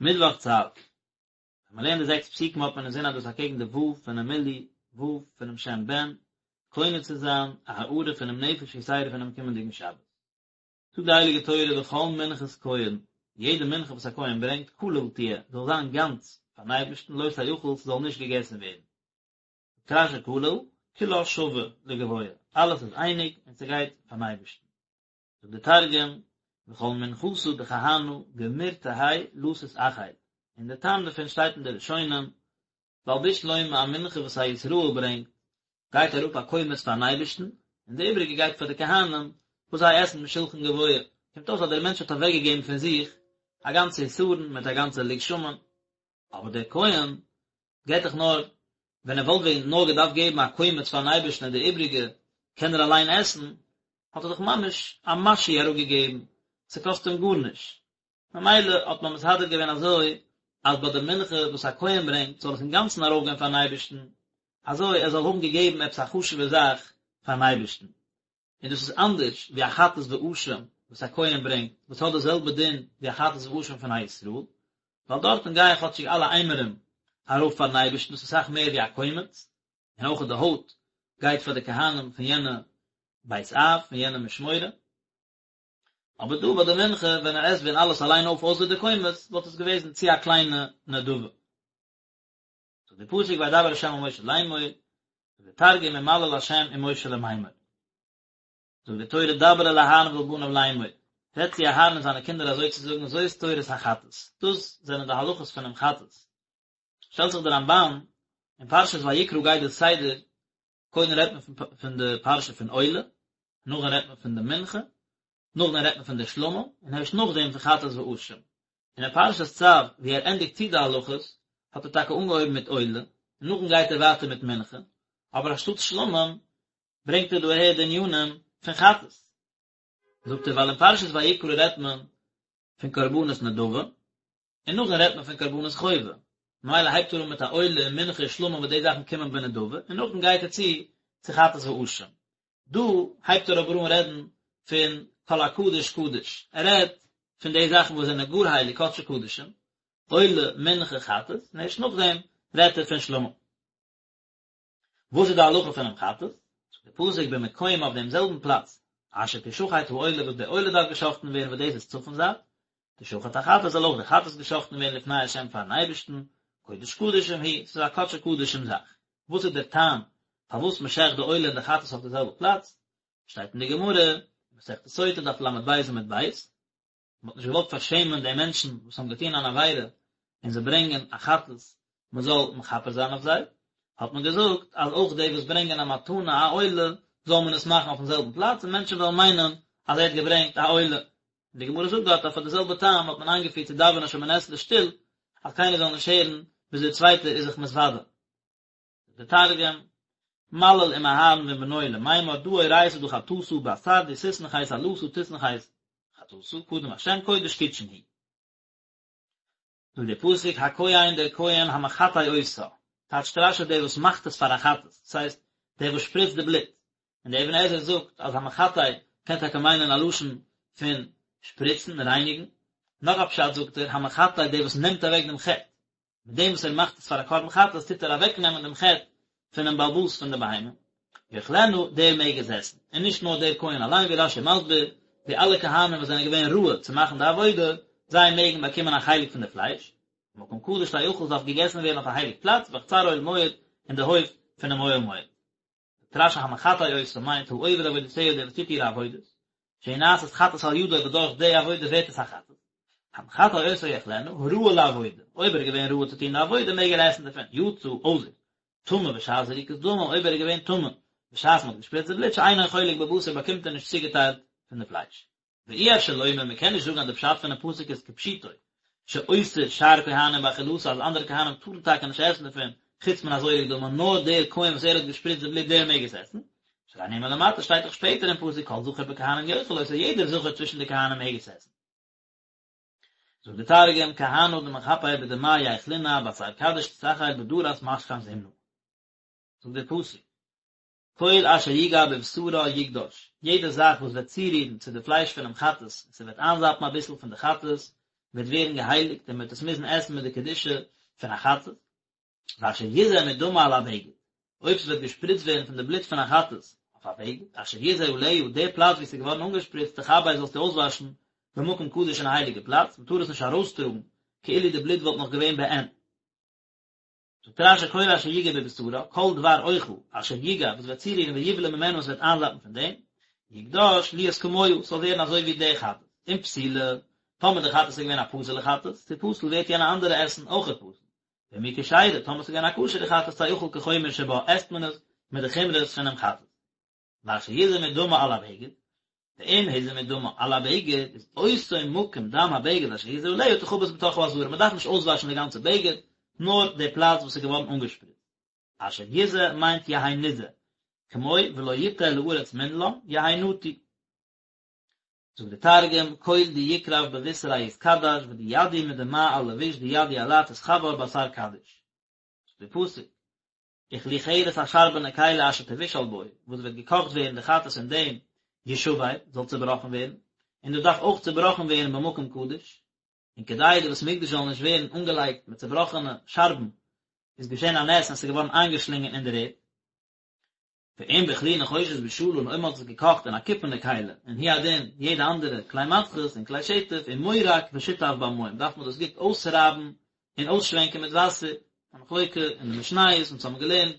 מיטוואך צו. ווען מען לערנט די זעקס פסוקים האט מען אינזין אז דאס איז אקעגן די ו' פונעם מילוי ו' פונעם שם בן, קונה צו זיין א הארה פונעם נפש יתירה פונעם קומענדיגן שבת. זאגט די הייליגע תורה וכל מנחת כהן, יעדע מנחה וואס א כהן ברענגט, כליל תהיה, זאל זיין גאנץ פארן אייבערשטן, לא תאכל, ס'זאל נישט געגעסן ווערן. זאגט רש"י כליל, כולה שווה לגבוה, אלעס איז אייניג און ס'גייט פארן אייבערשטן. זאגט דער תרגום, וכל מנחתא דכהנא גמיר תהי לא תתאכיל, און דער טעם דערפון שטייט אין די ראשונים, ווייל בשלמא א מנחה וואס א ישראל ברענגט, גייט אראפ א קומץ פארן אייבערשטן, און די איבריגע גייט פאר די כהנים וואס זיי עסן משולחן גבוה, קומט אויס אז דער מענטש האט אוועקגעגעבן פון זיך א גאנצע עשרון מיט א גאנצע לוג שמן, אבער דער כהן געבט דאך נאר, ווען ער וואלט ווען נאר געדארפט געבן א קומץ פארן אייבערשטן און די איבריגע קען ער אליין עסן, האט ער דאך ממש א משהו אראפגעגעבן, ס'קאסט אים גארנישט. ממילא האט מען מסדר געווען אזוי אז ביי די מנחה וואס א כהן ברענגט זאל עס אינגאנצן ארויפגיין פארן אייבערשטן, אזוי ער זאל האבן געגעבן עפעס א חשוב'ע זאך פארן אייבערשטן. און דאס איז אנדערש ווי א חטאת ואשם וואס א כהן ברענגט, וואס האט די זעלבע דין ווי א חטאת ואשם פון א ישראל, ווייל דארטן גייען כאטשיג אלע אימורים ארויף פארן אייבערשטן, דאס איז אסאך מער ווי א קומץ, און אויך די הויט גייט פאר די כהנים פון יענע בית אב, פון יענע משמורה. אבער דא ביי די מנחה, ווען ער עסט ווען אלעס אליין אויף אויסער די קומץ, וואלט עס געוועזן צו א קליינע נדבה. זאגט די פסוק וידבר ה' אל משה לאמור, זאגט די תרגום ומליל ה' עם משה למימר. זאגט די תורה דבר אל אהרן ואל בניו לאמור, רעד צו אהרן און זיינע קינדער אזוי צו זאגן זאת תורת החטאת, דאס זענען די הלכות פונעם חטאת. שטעלט זיך די רמב"ן, אין פרשת ויקרא גייט די סדר, קודם רעדט מען פון די פרשה פון עולה, נאכדעם רעדט מען פון די מנחה, נאכדעם רעדט מען פון די שלמים, און הערשט נאכדעם פון חטאת ואשם. און אין פרשת צו, ווי ער ענדיגט צו די הלכות, האט ער טאקע אנגעהויבן מיט עולה, און נאכדעם גייט ער ווייטער מיט מנחה, אבער אנשטאט שלמים, ברענגט ער דא אהער די ענינים פון חטאת. זאגט ער, ווייל אין פרשת ויקרא רעדט מען פון קרבנות נדבה, און נאכדעם רעדט מען פון קרבנות חובה, ממילא הייבט ער אן מיט א עולה און מנחה און שלמים וואס די זאכן קומען בנדבה, און נאכדעם גייט ער צו צו חטאת ואשם. דא הייבט ער אבער אן רעדן פון כל הקדוש קדוש, ער רעדט פון די זאכן וואס זענען גאר הייליג קדשי קדשים, עולה, מנחה, חטאת, און ערשט נאכדעם רעדט ער פון שלמים. וואס איז די הלכה פונעם חטאת? זאגט דער פסוק במקום אויף דעם זעלבן פלאץ אשר תשחט העולה וואס די עולה דארף געשחטן ווערן וואס דאס איז צפון זייט, תשחט החטאת זאל אויך די חטאת געשחטן ווערן לפני השם פארן אייבערשטן, קודש קדשים היא, ס'איז א קדשי קדשים זאך. וואס איז דער טעם פארוואס מען שעכט די עולה און די חטאת אויף די זעלבע פלאץ? שטייט אין די גמרא, מסכת סוטה דף ל"ב עמוד ב', מען האט נישט געוואלט פארשעמען די מענטשן וואס האבן געטון אן עבירה און זיי ברענגען א חטאת מען זאל מכפר זיין אויף זיי, האט מען געזאגט אז אויך די וואס ברענגען א מתנה א עולה זאל מען עס מאכן אויפן זעלבן פלאץ און מענטשן וועלן מיינען אז ער האט געברענגט א עולה. און די גמרא זאגט דארט אז פאר די זעלבע טעם האט מען איינגעפירט צו דאווענען שמונה עשרה שטיל אז קיינער זאל נישט הערן וויאזוי דער צווייטער איז זיך מתוודה. די תרגום, מליל עם אהרן ועם בנוי למימר דא אורייתא דא חטאתא באתר די תתנכס עלתא תתנכס חטאתא קדם השם קודש קודשין היא. זאגט דער פסוק הכהן דער כהן המחטא אותה, טייטשט רש"י דער וואס מאכט עס פאר א חטאת, דאס הייסט דער וואס שפריצט די בלוט, און דער אבן עזרא זאגט אז המחטא קען טאקע מיינען א לשון פון שפריצן, רייניגן, נאך א פשט זאגט ער המחטא דער וואס נעמט אוועק דעם חטא, מיט דעם וואס ער מאכט עס פאר א קרבן חטאת טוט ער אוועקנעמען דעם חטא פונעם בעל הבית פון די בהמה. יאכלנה, דער מעג עס עסן, און נישט נאר דער כהן אליין ווי רש"י מסביר, די אלע כהנים וואס זענען געווען ראוי צו מאכן די עבודה, זיי מעגן באקומען א חלק פון די פלייש. במקום קדוש תאכל עס דארף געגעסן ווערן אויף א הייליג פלאץ, בחצר אוהל מועד, אין די הויף פונעם אוהל מועד. זאגט רש"י המחטא אותה מיינט העובר עבודותיה דער וואס טוט אירע עבודות, שהיא נעשית חטאת על ידו וואס דורך די עבודה ווערט עס א חטאת. המחטא אותה יאכלנה, הראוי לעבודה, אויב ער איז געווען ראוי צו טון די עבודה מעג ער עסן דערפון, יצא, אויסער, טמא בשעת זריקת דמים, אויב ער איז געווען טמא בשעת מען האט געשפריצט די בלוט שאינו חולק בבשר באקומט ער נישט צוגעטיילט פון די פלייש. ואי אפשר לומר מען קען נישט זאגן אז די פשט פונעם פסוק איז כפשוטו, שאוסר שאר כהנים באכילתה אז אנדערע כהנים טארן טאקע נישט עסן דערפון חוץ מן הזורק דמה נאר דער כהן וואס ער האט געשפריצט די בלוט דער מעג עס עסן, שהרי נאמר למטה שטייט דאך שפעטער אין פסוק כל זכר בכהנים יאכל אותו יעדער זכר צווישן די כהנים מעג עס עסן. זאגט די תרגום, כהנא דמכפר בדמיא ייכלינא באתר קדיש תתאכיל בדרת משכן זימנא. זאגט דער פסוק, כל אשר יגע בבשרה יקדש, יעדע זאך וואס וועט צורירן צו די פלייש פונעם חטאת און ס'וועט איינזאפן אביסל פון די חטאת, וועט ווערן געהייליגט און מען וועט עס מוזן עסן מיט די קדושה פון א חטאת. ואשר יזה מדמה על הבגד, אויב ס'וועט געשפריצט ווערן פון די בלוט פון א חטאת אויף א בגד, אשר יזה עליה, די פלאץ וואו ס'איז געווארן אנגעשפריצט, תכבס זאלסטו אויסוואשן במקום קדוש אין א הייליגע פלאץ, מ'טאר עס נישט ארויסטראגן כאילו די בלוט וואלט נאך געווען בעין. זאגט רש"י כל אשר יגע בבשרה, כל דבר אוכל, אשר יגע, וואס וועט צורירן ויבלע ממנה און ס'וועט איינזאפן פון דעם, יקדש להיות כמוה, ס'זאל ווערן אזוי ווי די חטאת, אם פסולה, טאמער די חטאת איז געווען א פסול'ע חטאת, תפסל ווערט יענע אנדערע עסן אויכעט פסול. ואם היא כשרה, טאמער ס'איז געווען א כשר'ע חטאת תאכל כחומר שבה, עסט מען עס מיט די חומרות פונעם חטאת. ואשר יזה מדמה על הבגד, ואם הוזה מדמה על הבגד, איז אותו מקום דם הבגד אשר הוזה עליה תכבס בתוך העזרה, מ'דארף נישט אויסוואשן די גאנצע בגד, נאר די פלאץ וואס איז געווארן אנגעשפריצט. אשר יזה מיינט יהא נזה, כמו ולא יטה לארץ מנלן, יהא נטוי. זאגט דער תרגום, כל די יקרב בבישרא יתקדש ודידי מדמע על לביש דידי עלה תתכבר באתר קדיש. זאגט דער פסוק, וכלי חרס א שארבענע כלי אשר תבושל בו, וואס וועט געקאכט ווערן די חטאת אין דעם, ישבר, זאל צעבראכן ווערן, און דאס דארף אויך צעבראכן ווערן במקום קדוש, און כדי די בית המקדש זאל נישט ווערן אנגעלייגט מיט צעבראכענע שארבן, איז געשען א נס און עס איז געווארן איינגעשלינגען אין דער ערד. ואם בכלי נחושת בשלה און אויב מען האט עס געקאכט אין א קופערנע כלי, און הוא הדין יעדע אנדערע כלי מתכות און כלי שטף ומורק ושוטף במים דארף מען דאס גוט אויסרייבן און אויסשווענקען מיט וואסער, א מחלוקה אין די משניות אונז האבן געלערנט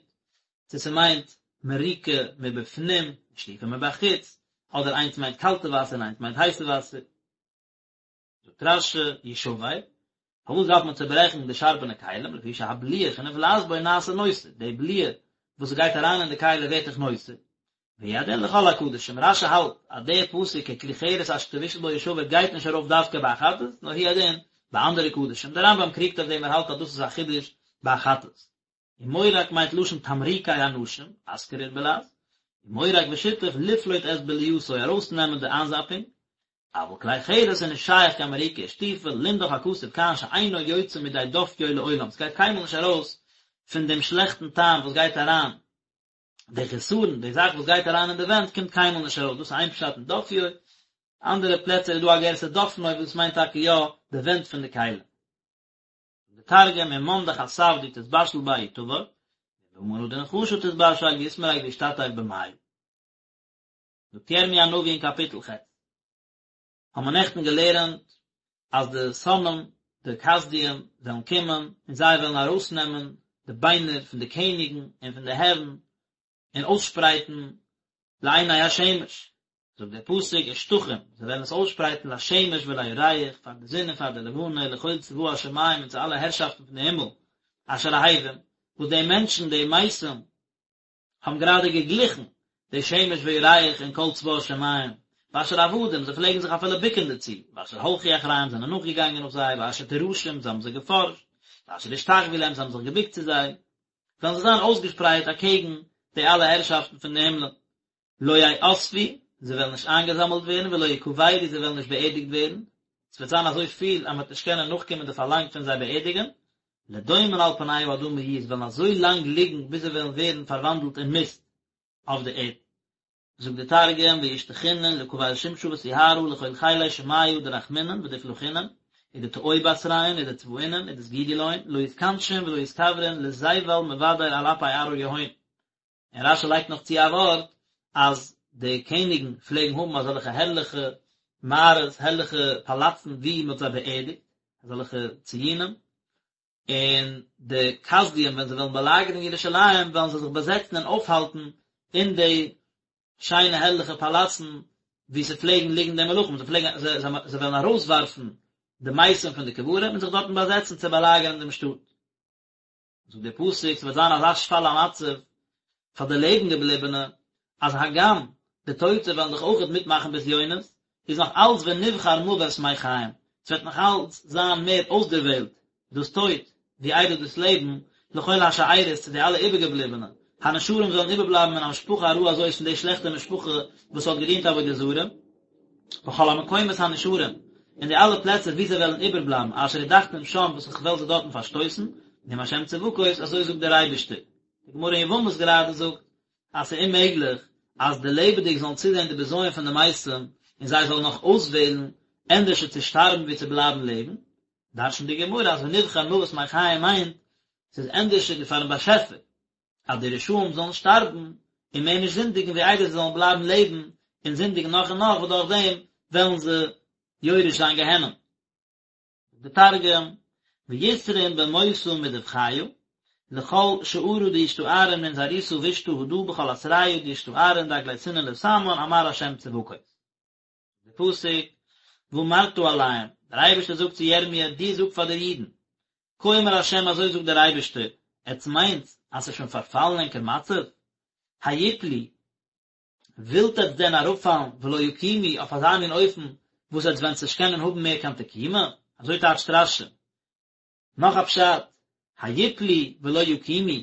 צו ס'מיינט מריקה מבפנים שטיפה מבחוץ, אדער איינס מיינט קאלטע וואסער און איינס מיינט הייסע וואסער. זאגט רש"י, ישבר, פארוואס דארף מען צוברעכן די שארבענע כלים, לפי שהבליעה שנבלעת בו נעשה נותר, די בליעה וואס גייט אריין אין די כלי ווערט דאך נותר, והוא הדין לכל הקדשים, רש"י האלט אז דער פסוק ככלי חרס אשר תבושל בו ישבר גייט נישט ארויף דווקא ביי א חטאת, נאר הוא הדין ביי אנדערע קדשים, דער רמב"ם קריגט אויף דעם ער האלט אז דאס איז א חידוש ביי א חטאת. ומורק מיינט לשון תמרוקי אנשים, אסכריר בלע"ז, ומורק ושיטף לפלוט את בליעתו ארויסנעמען די איינזאפונג, אבל כלי חרס איז נישט שייך קיין מריקה ושטיפה, לימדך הכתוב כאן שאינו יוצא מידי דופיו לעולם, ס'גייט קיינמאל נישט ארויס פון דעם שלעכטן טעם וואס גייט אריין, די חסרון, די זאך וואס גייט אריין אין די ווענט קומט קיינמאל נישט ארויס, דאס איז איין פשט אין דופיו, אנדערע פלעצער איז דא א גירסא דופנו וואס מיינט טאקע יא די ווענט פון די כלי. די תרגום ומאן דחסף די תתבשיל ביה יתבר, ובמנא דנחשא תתבשיל יתמרק וישתטף במיא. זאגט ירמי' הנביא אין קאפיטל ח', האבן מיר נעכטן געלערנט אז די שונאים, די כשדים, וועלן קומען און זיי וועלן ארויסנעמען די ביינער פון די קעניגן און פון די הערן און אויסשפרייטן לעיני השמש, זאגט דער פסוק ושטחום, זיי וועלן עס אויסשפרייטן לשמש ולירח, פאר די זון און פאר די לבנה, ולכל צבא השמים און צו אלע הערשאפטן פון די הימל, אשר אהבום, וואס די מענטשן, די מתים, האבן גראדע געגליכן די שמש וירח און כל צבא השמים, ואשר עבדום, זיי פלעגן זיך אפילו בוקן דערצו, ואשר הלכו אחריהם, זענען נאכגעגאנגען נאך זיי, ואשר דרשום, זיי האבן זיי געפארשט, ואשר השתחוו להם, זיי האבן זיך געבוקט צו זיי, וועלן זיי זיין אויסגעשפרייט אקעגן די אלע הערשאפטן פון די הימלען. לא יאספו, זיי וועלן נישט איינגעזאמלט ווערן, ולא יקברו, זיי וועלן נישט באערדיגט ווערן, עס וועט זיין אזוי פיל אז מען וועט נישט קענען נאכקומען די פארלאנג פון זיי באערדיגן, לדומן על פני האדמה יהיו, זיי וועלן אזוי לאנג ליגן ביז זיי וועלן ווערן פארוואנדלט אין מיסט אויף די ערד. זאגט דער תרגום, וישתחינון לקבל שמשא וסיהרא לכל חילי שמיא דרחמינן ודפלחינן, ודטעו בתריהון ודצבאינון ודסגידו להון, לא יתכנשון ולא יתקברון לזבל מבדר על אפי ארעא יהון. און רש"י לייגט נאך צו א ווארט אז די קעניגן פלעגן האבן אזעלכע הערליכע מערות, הערליכע פאלאצן וואו מען האט זיי באערדיגט, אזעלכע ציונים, און די כשדים ווען זיי וועלן באלאגערן ירושלים וועלן זיי זיך באזעצן און אויפהאלטן אין די שיינע הערליכע פאלאצן וואו ס'פלעגן ליגן די מלכים, זיי פלעגן, זיי וועלן ארויסווארפן די מתים פון די קברים און זיך דארטן באזעצן צו באלאגערן דעם שטאט. זאגט דער פסוק, ס'וועט זיין אזא שפל המצב פאר די לעבן געבליבענע, אז הגם די טויטע וועלן דאך אויכעט מיטמאכן בזיונות, איז נאך אלץ ונבחר מוות מחיים, ס'וועט נאך אלץ זיין מער אויסדערוועלט דאס טויט, ווי איידער דאס לעבן, לכל השארית צו די אלע איבערגעבליבענע, הנשארים זאלן איבערבלייבן מן המשפחה הרעה הזאת פון די שלעכטע משפחה וואס האט געדינט עבודה זרה. בכל המקומות הנשארים, אין די אלע פלעצער וואו זיי וועלן איבערבלייבן, אשר הדחתים שם וואס איך וועל זיי דארטן פארשטויסן, נאום השם צבקות, אזוי זאגט דער אייבערשטער. די גמרא אין יבמות גראדע זאגט, אז ס'איז אוממעגליך אז די לעבעדיג זאלן צוזען די בזיון פון די מתים, און זיי זאלן נאך אויסוועלן ענדערשער צו שטארבן ווי צו בלייבן לעבן, דרש'נט די גמרא אז ונבחר מוות מחיים מיינט, ס'איז ענדערשער פאר'ן באשעפער אז די רשעים זאלן שטארבן און מער נישט זינדיגן ווי איידער זיי זאלן בלייבן לעבן און זינדיגן נאך און נאך וואס דורך דעם וועלן זיי יורש זיין גיהנום. די תרגום, ויתרון במותא מדבחיא, לכל שערא דישתארון מן זערותא בישתא הדא בכל אתריא דישתארון דאגלייתינן לתמן אמר ה' צבקות. די פסוק, ואמרת אליהם, דער אייבערשטער זאגט צו ירמיה, דו זאג פאר די אידן, כה אמר ה' אזוי זאגט דער אייבערשטער, עטס מיינטס אז ס'איז שוין פארפאלן ענקער מצב? היפלו, ווילט עטס דען אראפפאלן ולא יקומו אויף אזא מין אופן וואס עטס וועטס נישט קענען האבן מער קיין תקומה? אזוי טייטשט רש"י. נאך א פשט, היפלו ולא יקומו,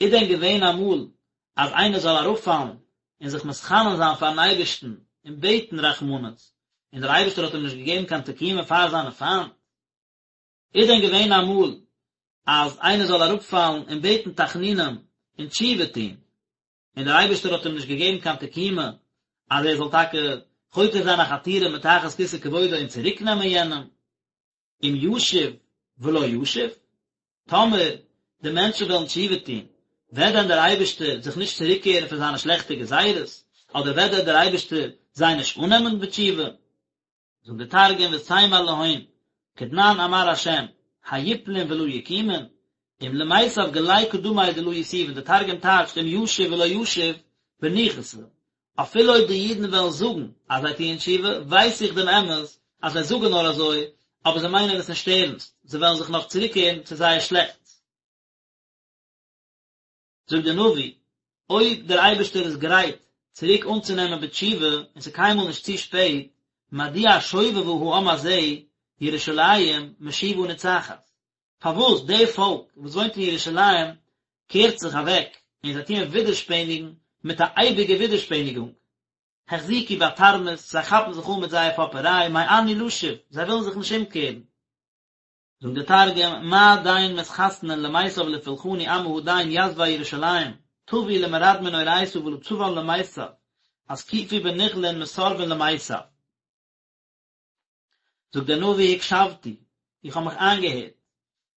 איז דען געווען אמאל אז איינער זאל אראפפאלן און זיך מתחנן זיין פארן אייבערשטן און בעטן רחמנות, און דער אייבערשטער האט אים נישט געגעבן קיין תקומה פאר זיינע פיינט? איז דען געווען אמאל אז איינער זאל אראפפאלן און בעטן תחנונים און תשובה טון, און דער אייבערשטער האט אים נישט געגעבן קיין תקומה אז ער זאל טאקע חותר זיין א חתירה מתחת כסא כבודו און צוריקנעמען יענעם? אם ישוב ולא ישוב, טאמער די מענטשן וועלן תשובה טון, וועט דען דער אייבערשטער זיך נישט צוריקקערן פון זיינע שלעכטע גזירות, אדער וועט דען דער אייבערשטער זיי נישט אננעמען בתשובה? זאגט דער תרגום ותימר להון, כדנן אמר ה', היפלון ולא יקומון, אם למיתב גלי קדמי דלא יתובון, דער תרגום טייטשט אם ישוב ולא ישוב, בניחותא, אפילו אויב די אידן וועלן זאגן אז זיי טוען תשובה, ווייס איך דעם אמת אז זיי זאגן נאר אזוי, אבער זיי מיינען עס נישט ערנסט, זיי וועלן זיך נאך צוריקקערן צו זייער שלעכטס. זאגט דער נביא, אויב דער אייבערשטער איז גרייט צוריק אנצונעמען בתשובה און ס'איז קיינמאל נישט צו שפעט, מדוע שובבה העם הזה ירושלים משובה נצחת, פארוואס די פאלק וואס וואוינט אין ירושלים קערט זיך אוועק און זיי טוען ווידערשפעניגן מיט א אייביגע ווידערשפעניגונג, החזיקו בתרמית, זיי כאפן זיך אן מיט זייער פאפעריי, מאנו לשוב, זיי ווילן זיך נישט אומקערן. זאגט דער תרגום, מה דין מתחסנין למיתב לפולחני עמא הדין יתבי ירושלים, טבו למרדמין אורייתא ולא צבן למיתב, אתקיפו בנכלין מסרבין למיתב. זאגט דער נביא הקשבתי, איך האב מיך איינגעהערט,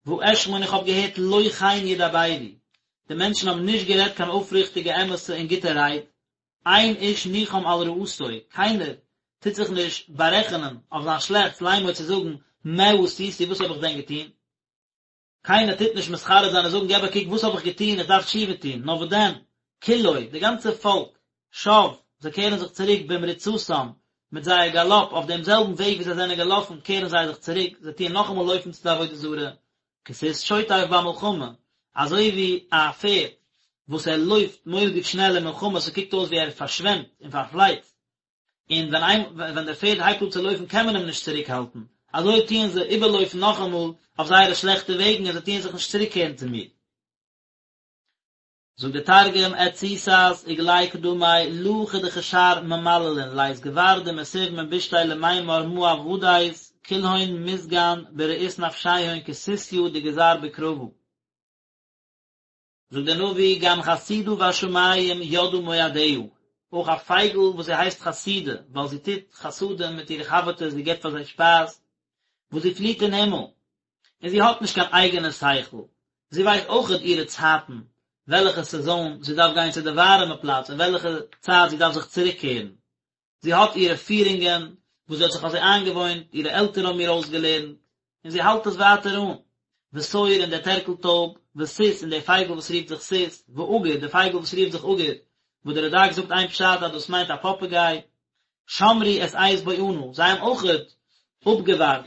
ואשמע און איך האב געהערט לא כן ידברו, די מענטשן האבן נישט גערעדט קיין אויפריכטיגע אמת'ע און גוטע רייד, אין איש נחם על רעתו, קיינער טוט זיך נישט בארעכענען אויף זיין שלעכטס לאמר צו זאגן מה עשיתי וואס האב איך דען געטון, קיינער טוט נישט מתחרט זיין און זאגן געב א קוק וואס האב איך געטון איך דארף תשובה טון, נאר וואס דען, כולו, די גאנצע פאלק, שב, זיי קערן זיך צוריק במרוצתם, מיט זייער גאלאפ, אויף דעם זעלבן וועג ווי זיי זענען געלאפן קערן זיי זיך צוריק, זיי טוען נאכאמאל לויפן צו די עבודה זרה, כסוס שוטף במלחמה, אזוי ווי א פערד וואס ער לויפט מורא'דיג שנעל אין מלחמה, ס'קוקט אויס ווי ער פארשוועמט און פארפלייצט, און ווען איין ווען דער פערד הייבט אן צו לויפן קען מען אים נישט צוריק האלטן, אזוי טוען זיי איבערלויפן נאכאמאל אויף זייערע שלעכטע וועגן און זיי טוען זיך נישט צוריקקערן צו מיר. זאגט דער תרגום, את סוסת וגלי קדמי לא כדכשר ממללין לית גבר דמסיב מן בישתיה למימר מה עבדית כלהון מסגן ברעות נפשיהון כסוסיא דגזר בקרבא. זאגט דער נביא, גם חסידה בשמים ידעה מועדיה, אויך א פייגל וואס זי הייסט חסידה, ווייל זי טוט חסדים מיט אירע חבר'טעס, זי געבט פאר זיי שפייז, וואס זי פליט אין הימל, און זי האט נישט קיין אייגענע שכל, זי ווייסט אויכעט אירע צייטן, וועלכע סעזאן זי דארף גיין צו די ווארעמע פלאץ און וועלכע צייט זי דארף זיך צוריקקערן, זי האט אירע פירונגען וואס זי האט זיך אזוי איינגעוואוינט, אירע עלטערן האבן איר אויסגעלערנט, און זי האלט עס ווייטער אן. ותור און דער טערקל טויב, וסוס און דער פייגל וואס רופט זיך סוס, ועגור, דער פייגל וואס רופט זיך עגור, וואס דער רד"ק זאגט איין פשט אז דאס מיינט א פאפעגיי, שמרו את עת בואנה, זיי האבן אויכעט אפגעווארט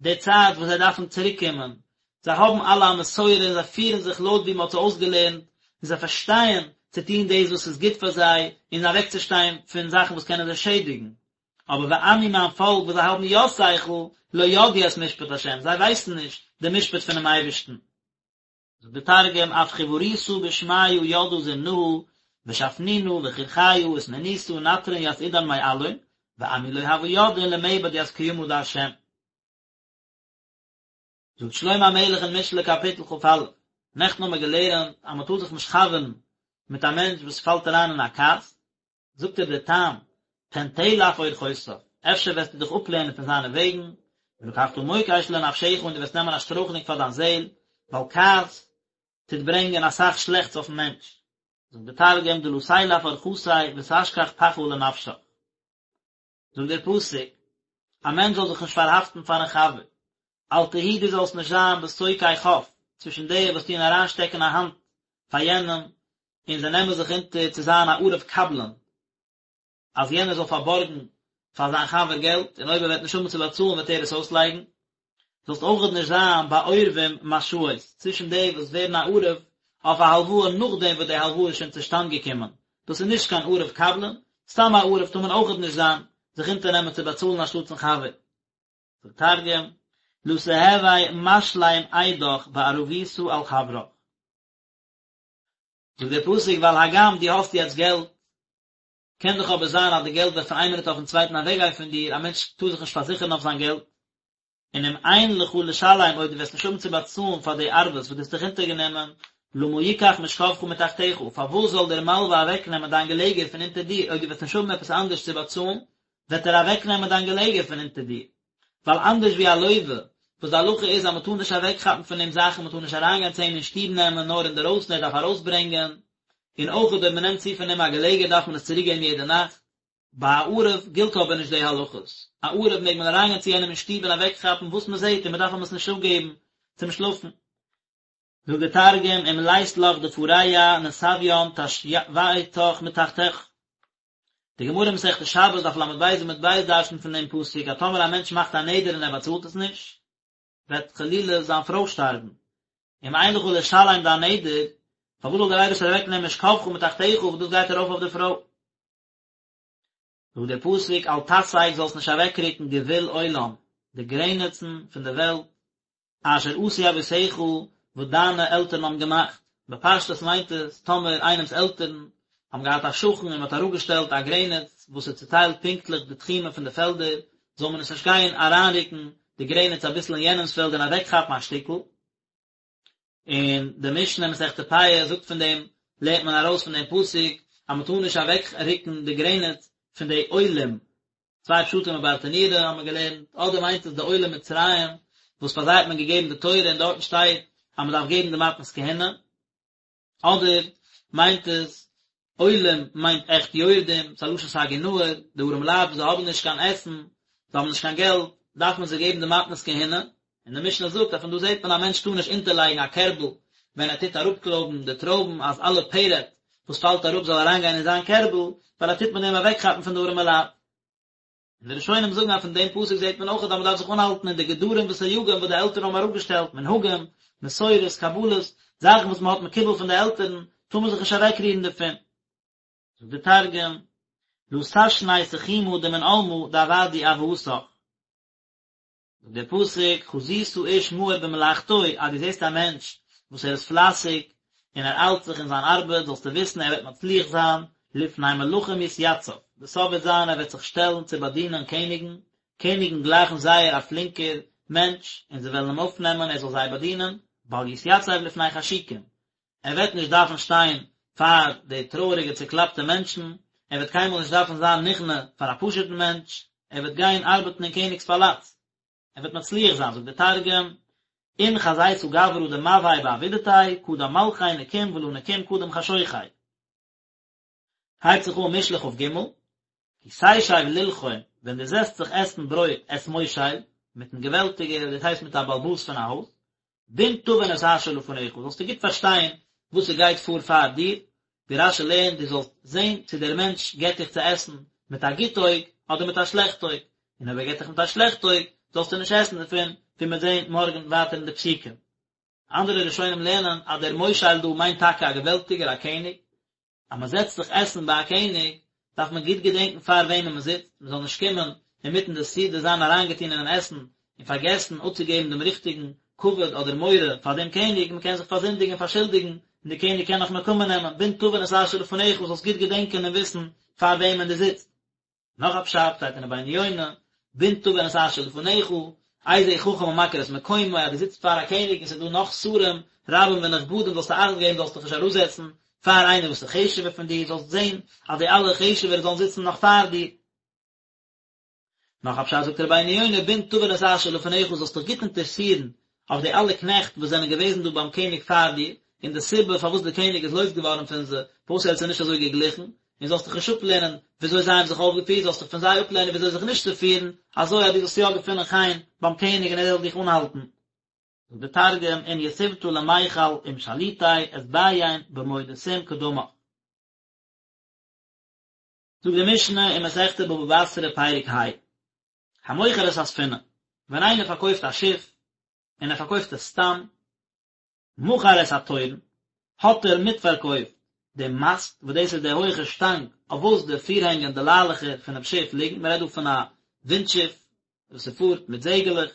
די צייט וואס זיי דארפן צוריק קומען, זיי האבן אלע א מסורה און זיי פירן זיך לויט ווי מען האט זיי אויסגעלערנט, און זיי פארשטייען צו טון דאס וואס איז גוט פאר זיי, און אוועקצושטיין פון זאכן וואס קענען זיי שעדיגן. אבער ועמי מיין פאלק וואס זיי האבן יא שכל, לא ידעו את משפט ה', זיי ווייסן נישט די משפט פונעם אייבערשטן. זאגט דער תרגום, אף חיוריתא בשמיא ידעא זמנהא, ושפנינא וכרכיא ותניניתא נטרן ית עידן מעלין, ועמי לא הוו ידעין למעבד ית קימא דה'. זאגט שלמה המלך אין משלי קאפיטל כ"א, נעכטן האבן מיר געלערנט אז מען טאר זיך נישט חבר'ן מיט א מענטש וואס פאלט אריין אין א כעס, זאגט ער די טעם, פן תלך אורחותיו, אפשר וועסטו דיך אפלערנען פון זיינע וועגן, ולקחת מוקש לנפשך און דו וועסט נעמען א שטרויכלונג פאר דיין זעל, ווייל כעס טוט ברענגען אסאך שלעכטס אויפן מענטש. זאגט דער תרגום דלא תילף ארחתיה ותשכח פחא לנפשך. זאגט דער פסוק, א מענטש זאל זיך נישט פארהאפטן פארן חבר, אל תהי דו זאלסט נישט זיין בתוקעי כף, צווישן די וואס טוען אריינשטעקן א האנט פאר יענעם, און זיי נעמען זיך אונטער צו זיין א ערב קבלן, אז יענער זאל פארבארגן פאר זיין חבר געלט, און אויב ער וועט נישט האבן צו באצאלן וועט ער עס אויסלייגן. זאלסט אויכעט נישט זיין בעורבים משאות, צווישן די וואס ווערן א ערב אויף א הלוואה נאכדעם וואס די הלוואה איז שוין צושטאנד געקומען, דאס איז נישט קיין ערב קבלן, סתם א ערב טאר מען אויכעט נישט זיין, זיך אונטערנעמען צו באצאלן אנשטאטס'ן חבר. זאגט תרגום, לא תהוי משלים אידך בערבותא על חברך. זאגט דער פסוק, ווייל הגם דו האסט יעצט געלט, קען דאך אבער זיין אז די געלט וועט פון איין מינוט אויפן צווייטן אוועקגיין פון דיר, א מענטש טאר זיך נישט פארזיכערן אויף זיין געלט, און אם אין לך לשלם אויב דו וועסט נישט האבן צו באצאלן פאר די ערבות וואס דו האסט דיך אונטערגענומען, למה יקח משכבך מתחתיך, פארוואס זאל דער מלווה אוועקנעמען דיין געלעגער פון אונטער דיר, אויב דו וועסט נישט האבן עפעס אנדערש צו באצאלן, וועט ער אוועקנעמען דיין געלעגער פון אונטער דיר. ווייל אנדערש ווי א לווה, וואס די הלכה איז אז מען טאר נישט אוועקכאפן פון אים זאכן, מען טאר נישט אריינגיין צו אים אין שטוב נעמען נאר אינדערויסן ער דארף ארויסברענגען, און אויך אויב מען נעמט צו פון אים א געלעגער דארף מען עס צוריקגעבן יעדע נאכט. ביי א ערב גילט אבער נישט די הלכות, א ערב מעג מען אריינגיין צו יענעם אין שטוב און אוועקכאפן וואס מען זעט און מען דארף אים עס נישט אפגעבן צום שלאפן. זאגט דער תרגום, אם לית לך דפרע נסביין תשויתך מתחתיך. די גמרא אין מסכת שבת דף ל"ב עמוד ב' דרש'נט פון דעם פסוק אז טאמער א מענטש מאכט א נדר און ער באצאלט עס נישט, וועט חלילה זיין פרוי שטארבן. אם אין לך לשלם דיין נדר, פארוואס זאל דער אייבערשטער אוועקנעמען משכבך מתחתיך וואס דאס גייט ארויף אויף די פרוי? זאגט דער פסוק אל תסג זאלסט נישט אוועקרוקן גבול עולם, די גרעניצן פון די וועלט, אשר עשו אבותיך, וואס דיינע עלטערן האבן געמאכט. בפשטות מיינט עס, טאמער איינעמ'ס עלטערן האבן געהאט א שכן און מען האט אראפגעשטעלט א גרעניץ וואס איז צוטיילט פונקטליך די תחומים פון די פעלדער, זאל מען עס נישט גיין אריינרוקן די גרעניץ אביסל אין יענעמ'ס פעלד און אוועקכאפן א שטיקל. און די משנה אין מסכת פאה זאגט פון דעם לערנט מען ארויס פון דעם פסוק אז מען טאר נישט אוועק רוקן די גרעניץ פון די עולים, צוויי פשטים אין ברטנורא האבן מיר געלערנט, אדער מיינט עס די עולי מצרים וואס פאר זיי האט מען געגעבן די תורה און דארטן שטייט אז מען דארף געבן די מתנות כהונה, אדער מיינט עס עולים מיינט עכט יורדים, ס'איז א לשון סגי נהור, די ארעמע לייט וואס זיי האבן נישט קיין עסן, זיי האבן נישט קיין געלט, דארף מען זיי געבן די מתנות כהונה, און די משנה זאגט אז פון דא זעט מען א מענטש טאר נישט אונטערלייגן א קערבל ווען ער טוט אראפקלויבן די טרויבן אז אלע פרט וואס פאלט אראפ זאל אריינגיין אין זיין קערבל, ווייל ער טוט מיט דעם אוועקכאפן פון די ארעמע לייט. און די ראשונים זאגן אז פון דעם פסוק זעט מען אויך אז מען דארף זיך אנהאלטן אין די גדרים וסייגים וואס די עלטערן האבן אראפגעשטעלט, מנהגים, מסורות, קבלות, זאכן וואס מען האט מקובל פון די עלטערן, טאר מען זיך נישט אוועקרירן דערפון. זאגט דער תרגום, לא תשני תחומא דמן עלמא דעבדו אבהתך. זאגט דער פסוק, חזית איש מהיר במלאכתו, אז דו זעסט א מענטש וואס ער איז פלייסיג און ער איילט זיך אין זיין ארבעט, זאלסטו וויסן ער וועט מצליח זיין, לפני מלכים יתיצב, די סוף וועט זיין ער וועט זיך שטעלן צו באדינען קעניגן, קעניגן גלייכן זייער א פלינקער מענטש, און זיי וועלן אים אויפנעמען ער זאל זיי באדינען, בל יתיצב לפני חשוכים, ער וועט נישט דארפן שטיין פאר די טרויעריגע צוקלאפטע מענטשן, ער וועט קיינמאל נישט דארפן זיין נכנע פאר א פשוט'ן מענטש, ער וועט גיין ארבעטן אין קעניג'ס פאלאץ, ער וועט מצליח זיין, זאגט דער תרגום, אין חזיתא גברא דמבהאי בעבידתיה, קדם מלכי נקים ולא נקים קדם חשוכי. הייבט זיך אן משלי כ"ג, כי תשב ללחום, ווען דו זעצט זיך עסן ברויט את מושל, מיטן געוועלטיגער, דאס הייסט מיט א בעל הבית פון א הויז, בין תבין את אשר לפניך, זאלסטו גוט פארשטיין וואס ס'גייט פאר פאר דיר, ווי רש"י לערנט, דו זאלסט זען צו דער מענטש געט דיך צו עסן מיט א גוט אויג אדער מיט א שלעכט אויג, און אויב ער געט דיך מיט א שלעכט אויג, זאלסטו נישט עסן דערפון, ווי מ'וועט זען מארגן ווייטער אין די פסוקים. אנדערע ראשונים לערנען אז דער מושל דא מיינט טאקע א געוועלטיגער, א קעניג, אז מען זעצט זיך עסן ביי א קעניג, דארף מען גוט געדענקן פאר וועמען מען זיצט, מען זאל נישט קומען אינמיטן די סעודה זיין אריינגעטון אינעם עסן און פארגעסן אפצוגעבן דעם ריכטיגן כבוד אדער מורא פאר דעם קעניג, מען קען זיך פארזינדיגן און פארשולדיגן, און דער קעניג קען נאך נקמה נעמען, בין תבין את אשר לפניך, זאלסט גוט געדענקען און וויסן פאר וועמען דו זיצט. נאך א פשט שטייט אין רבינו יונה, בין תבין את אשר לפניך, איזהו חכם המכיר את מקומו, אז דו זיצט פאר א קעניג און ס'איז דא נאך שרים רבים ונכבדים זאלסטו אכט געבן זאלסט דיך נישט אראפזעצן פאר איינער וואס איז חשוב'ער פון דיר, זאלסט זען אז די אלע חשוב'ערע זאלן זיצן נאך פאר דיר. נאך א פשט זאגט רבינו יונה בן תבין את אשר לפניך זאלסט דיך גוט אינטערסירן אויף די אלע קנעכט וואס זענען געוועזן דא ביים קעניג פאר דיר, און די סיבה פארוואס דער קעניג איז לויז געווארן פון זיי, פארוואס ער האט זיי נישט אזוי געגליכן, און זאלסט דיך נישט אפלערנען וויאזוי זיי האבן זיך אויפגעפירט, זאלסט דיך פון זיי אפלערנען וויאזוי זיך נישט צו פירן, אזוי אז דו זאלסט יא געפינען חן ביים קעניג און ער זאל דיך אנהאלטן. זאגט דער תרגום, אין יתיבתא למיכל עם שליטי אתביין במודתים קדמך. זאגט די משנה אין מסכת בבא בתרא פרק ה, המוכר את הספינה, ווען איינער פארקויפט א שיף, און ער פארקויפט עס סתם, מכר את התורן, האט ער מיטפארקויפט דעם מאסט, וואס דאס איז די הויכע שטאנג אויף וואס די פירהענגען, די ליילעכער פונעם שיף ליגן, מען רעדט דא פון א ווינט שיף וואס ס'פארט מיט זעגעלעך,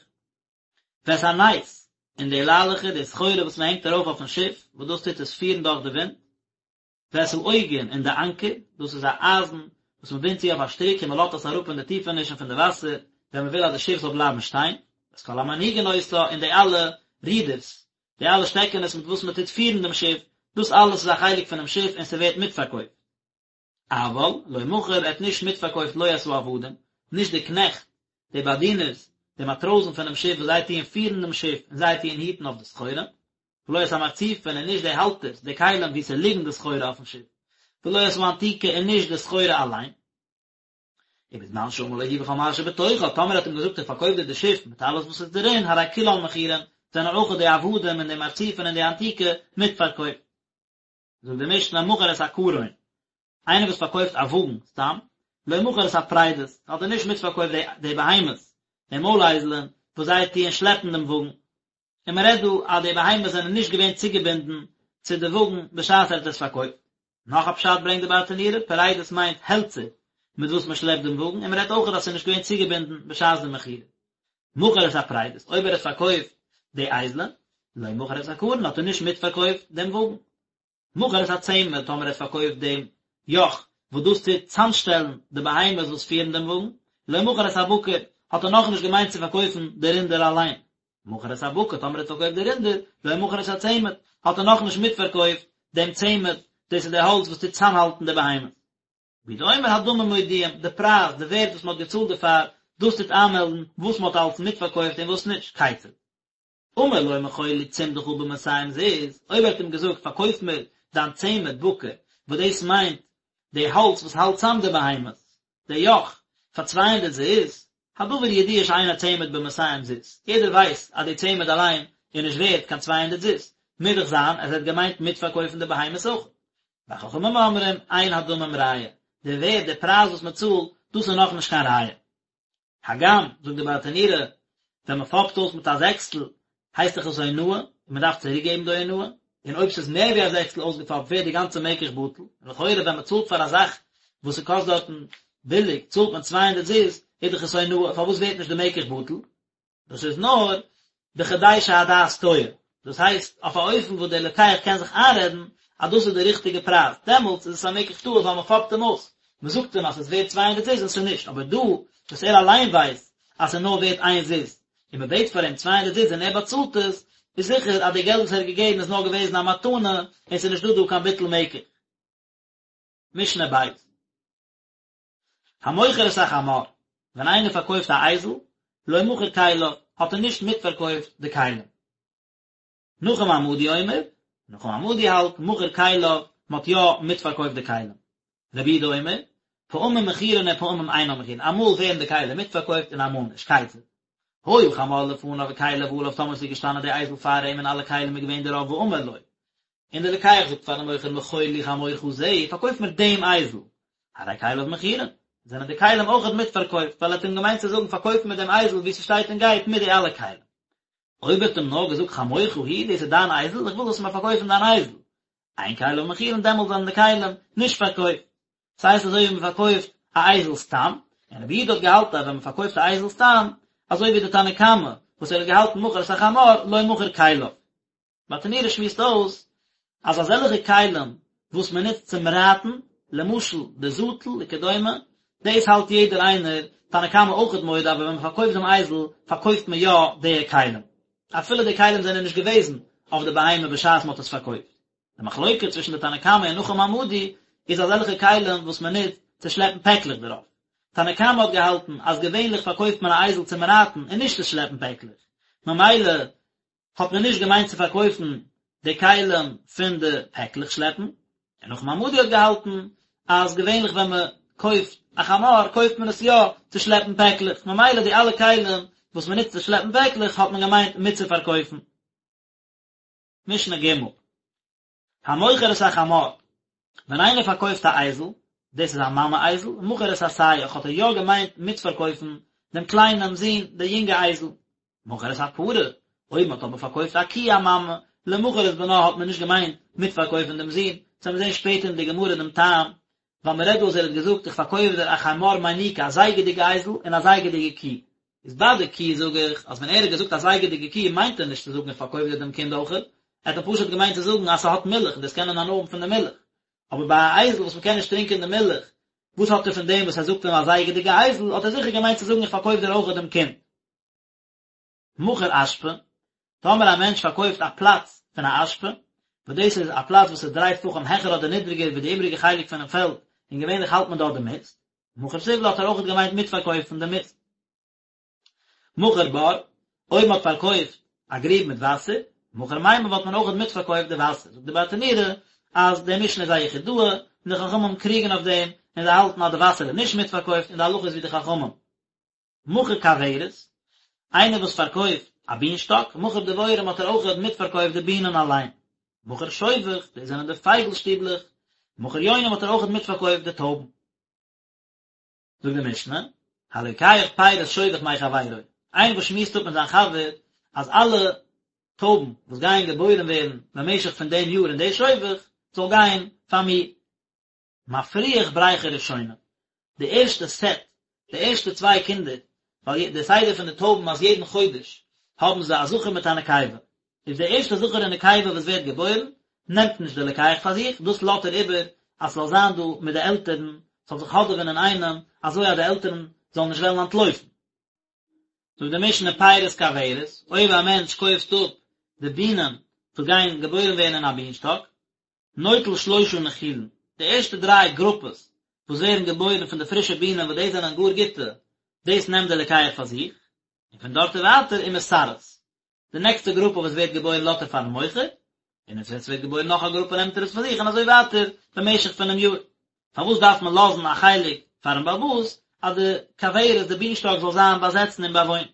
ואת הנס, און די ליילעכער, די סחורה וואס מען הענגט ארויף אויפן שיף, וואס דאס טוט עס פירן דורך די ווינט, ואת העוגן און די אנקער, דאס איז א אייזן וואס מען בינדט צו אויף א שטריק און מען לאזט עס אראפ אין די טיפענישן פון די וואסער ווען מען וויל אז די שיף זאל בלייבן שטיין, ואת כל המנהיגין אותה און די אלע רודערס, די אלע שטעקענעס מיט וואס מען טוט פירן דעם שיף, דאס אלעס איז א חלק פונעם שיף און ס'ווערט מיטפארקויפט. אבל לא מכר ער האט נישט מיטפארקויפט לא את העבדים, נישט די קנעכט, די באדינערס, די מאטראזן פונעם שיף וואס זיי טוען פירן דעם שיף און זיי טוען היטן אויף די סחורה, ולא את המרצופין און נישט די האלטערס, די כלים וואו ס'ליגן די סחורה אויפן שיף, ולא את האנתיקה און נישט די סחורה אליין. ובזמן שאמר לו היא וכל מה שבתוכה, טאמער האט אים געזאגט איך פארקויף דיר די שיף מיט אלעס וואס איז דערין, הרי כולן מכורין, זענען אויך די עבדים און די מרצופין און די אנתיקה מיטפארקויפט. זאגט די משנה מכר את הקרון, איינער וואס פארקויפט א וואגן סתם, לא מכר את הפרדות, האט ער נישט מיטפארקויפט די די בהמות, די מוילאייזלען, וואס זיי טוען שלעפן דעם וואגן. און מען רעדט דא אז די בהמות זענען נישט געווען צוגעבינדן צו די וואגן בשעת ער האט עס פארקויפט. נאך א פשט ברענגט די ברטנורא, פרדות מיינט העלצער מיט וואס מען שלעפט דעם וואגן, און מען רעדט אויך אז עס איז נישט געווען צוגעבינדן בשעת די מכירה. מכר את הפרדות, אויב ער האט פארקויפט די אייזלען, לא מכר את הקרון, האט ער נישט מיטפארקויפט דעם וואגן. מכר את הצמד, טאמער ער האט פארקויפט דעם יאך וואס דאס טוט צאמשטעלן די בהמות וואס פירן דעם וואגן, לא מכר את הבקר, האט ער נאכנישט געמיינט צו פארקויפן די רינדער אליין. מכר את הבקר, טאמער ער האט פארקויפט די רינדער, לא מכר את הצמד, האט ער נאכנישט מיטפארקויפט דעם צמד, דאס איז די האלץ וואס טוט צאמהאלטן די בהמות. רבי יהודה אומר הדמים מודיעים, די פרייז, די ווערט וואס מען האט געצאלט דערפאר, דאס טוט איינמעלדן וואס מען האט אלס מיטפארקויפט און וואס נישט, כיצד? אמר לו מכור לי צמדך במאתים זוז, אויב ער האט אים געזאגט פארקויף מיר דיין צמד בקר, וואס דאס מיינט די האלץ וואס האלט צאם די בהמות, די יאך, פאר 200 זוז, הדבר ידוע שאין הצמד במאתים זוז, יעדער ווייסט אז די צמד אליין איז נישט ווערט קיין 200 זוז, מוז דאך זיין אז ער האט געמיינט מיטפארקויפן די בהמות אויך. וחכמים אומרים אין הדמים ראיה, די ווערט, די פרייז וואס מען צאלט, דאס איז נאכנישט קיין ראיה. הגם, זאגט די ברטנורא, ווען מען פאפט אויס מיט א זעקסטל, הייסט דאך עס אונאה, און מען דארף צוריק געבן די אונאה, און אויב ס'איז מער ווי א זעקסטל אויסגעפאפט ווערט די גאנצע מקח בטל, און לכאורה ווען מען צאלט פאר א זאך וואס ס'קאסט דארטן ביליג צאלט מען 200 זוז, איז דאך עס אונאה, פארוואס ווערט נישט די מקח בטל? דאס איז נאר בכדי שהדעת טועה, דאס הייסט אויף א אופן וואס דער לוקח קען זיך איינרעדן אז דאס איז די ריכטיגע פרייז, דעמאלטס איז עס א מקח טעות ווייל מען פאפט אים אויס, מען זאגט אים אז ס'איז ווערט 200 זוז און ס'איז נישט, אבער דא וואס ער אליין ווייסט אז ס'איז נאר ווערט איין זוז, און מען בעט פאר אים 200 זוז און ער באצאלט עס, איז זיכער אז די געלט וואס ער האט געגעבן איז נאר געוועזן א מתנה און ס'איז נישט דא דא קיין ביטול מקח. משנה ב'. המוכר את החמור, ווען איינער פארקויפט א אייזל, לא מכר כליו, האט ער נישט מיטפארקויפט די כלים. נחום המדי אומר, נחום המדי האלט, מכר כליו, מען האט יא מיטפארקויפט די כלים. רבי יהודה אומר, פעמים מכורין ופעמים אינן מכורין, אמאל ווערן די כלים מיטפארקויפט און אמאל נישט, כיצד? היה חמור לפניו וכליו עליו טאמער ס'איז געשטאנען די אייזל פאר אים און אלע כלים איז געווען דערויף ואמר לו, און דער לוקח זאגט פארן מוכר מכור לי חמורך זה, פארקויף מיר דעם אייזל, הרי כליו מכורין, זענען די כלים אויכעט מיטפארקויפט, ווייל ער האט אים געמיינט צו זאגן פארקויף מיר דעם אייזל ווי ס'שטייט און גייט מיט די אלע כלים. אויב ער האט אים נאר געזאגט חמורך הוא, דאס איז דיין אייזל, איך וויל זאלסט מיר פארקויפן דיין אייזל, אין כליו מכורין, דעמאלט זענען די כלים נישט פארקויפט. ס'הייסט אזוי ווי מ'פארקויפט א אייזל סתם, און רבי יהודה האט געהאלטן אז ווען מ'פארקויפט א אייזל סתם, אזוי ווי די תנא קמא וואס ער האט געהאלטן מכר את החמור לא מכר כליו. ברטנורא שמועסט אויס אז אזעלכע כלים וואס מען נוצט צום רייטן, למשל די זאטל וכדומה, דאס האלט יעדער איינער, תנא קמא אויכעט מודה, אבער ווען מען פארקויפט דעם אייזל פארקויפט מען יא די כלים, אפילו די כלים זענען נישט געוועזן אויף די בהמה בשעת מען האט עס פארקויפט. די מחלוקה צווישן די תנא קמא און נחום המדי איז אזעלכע כלים וואס מען נוצט צו שלעפן פעקלעך דערויף. תנא קמא האט געהאלטן אז געווענליך פארקויפט מען א אייזל צום רייטן און נישט צו שלעפן פעקלעך, ממילא האט מען נישט געמיינט צו פארקויפן די כלים פון די פעקלעך שלעפן, און נחום המדי האט געהאלטן אז געווענליך ווען מען קויפט א חמור קויפט מען עס יא צו שלעפן פעקלעך, ממילא די אלע כלים וואס מען נוצט צו שלעפן פעקלעך האט מען געמיינט מיטצופארקויפן. משנה ג' המוכר את החמור, ווען איינער פארקויפט א אייזל, דאס איז א מאמע אייזל, מכר את הסייח האט ער יא געמיינט מיטפארקויפן דעם קליינעם זון, די יונגע אייזל. מכר את הפרה, אויב מען האט אבער פארקויפט א קי א מאמע, לא מכר את בנה האט מען נישט געמיינט מיטפארקויפן דעם זון, דאס וועלן מיר זען שפעטער אין די גמרא דעם טעם, ווייל מען רעדט דא אז ער האט געזאגט איך פארקויף דיר א חמור מניקה א זייגעדיגע אייזל און א זייגעדיגע קי, איז ביי די קי זאג איך אז ווען ער האט געזאגט א זייגעדיגע קי מיינט ער נישט צו זאגן איך פארקויף דיר דעם קינד אויכעט, ער האט אים פשוט געמיינט צו זאגן אז ס'האט מילך און דאס קען מען הנאה האבן פון די מילך, אבער ביי א אייזל וואס מ'קען נישט טרינקען די מילך, וואס האט ער פון דעם וואס ער זאגט אים א זייגעדיגע אייזל, האט ער זיכער געמיינט צו זאגן איך פארקויף דיר אויכעט דעם קינד. מכר אשפה, טאמער א מענטש פארקויפט א פלאץ פון א אשפה, וואס דאס איז א פלאץ וואס איז דריי טפחים העכער אדער נידריגער ווי די איבריגע חלק פונעם פעלד, און געווענליך האלט מען דארט די מיסט, מכר זבלה האט ער אויכעט געמיינט מיטפארקויפן די מיסט. מכר בור, אויב מען האט פארקויפט א גריב מיט וואסער, מכר מימיו האט מען אויכעט מיטפארקויפט די וואסער. זאגט די ברטנורא אז די משנה איז א יחידאה, און די חכמים קריגן אויף דעם, און זיי האלטן אז די וואסער איז נישט מיטפארקויפט, און די הלכה איז ווי די חכמים. מכר כוורת, איינער וואס פארקויפט א בינשטאק, מכר דבורים האט ער אויכעט מיטפארקויפט די בינען אליין. מכר שובך, דאס זענען די פייגל שטיבלעך, מכר יונים האט ער אויכעט מיטפארקויפט די טויבן. זאגט די משנה, הלוקח פירות שובך מחבירו, איינער וואס שמועסט אפ מיט זיין חבר אז אלע טויבן וואס גייען געבוירן ווערן במשך פון דעם יאר אין די שובך, זאל גיין פאר מיר. מפריח בריכה ראשונה, די ערשטע סעט, די ערשטע צוויי קינדער, ווייל די סדר פון די טויבן אז יעדן חודש האבן זיי א זכר מיט א נקבה, איז די ערשטע זכר און נקבה וואס ווערט געבוירן, נעמט נישט די לוקח פאר זיך, דאס לאזט ער איבער אז ס'זאל זיין דא מיט די עלטערן, ס'זאל זיך האדעווען אינאיינעם, אזוי אז די עלטערן זאלן נישט וועלן אנטלויפן. זאגט די משנה פירות כוורת, אויב א מענטש קויפט אפ די בינען וואס גייען געבוירן ווערן אין א בינשטאק, נוטל שלושה נחילין, די ערשטע דריי גרופעס וואס ווערן געבוירן פון די פרישע בינען וואס דאס זענען גאר גוטע, דאס נעמט דער לוקח פאר זיך, און פון דארט און ווייטער ומסרס, די נעקסטע גרופע וואס ווערט געבוירן לאזט ער פארן מוכר, און ווען עס ווערט געבוירן נאך א גרופע נעמט ער עס פאר זיך און אזוי ווייטער במשך פונעם יאר. פארוואס דארף מען לאזן א חלק פארן בעל הבית אז די כוורת, די בינשטאק זאל זיין באזעצן און באוואוינט?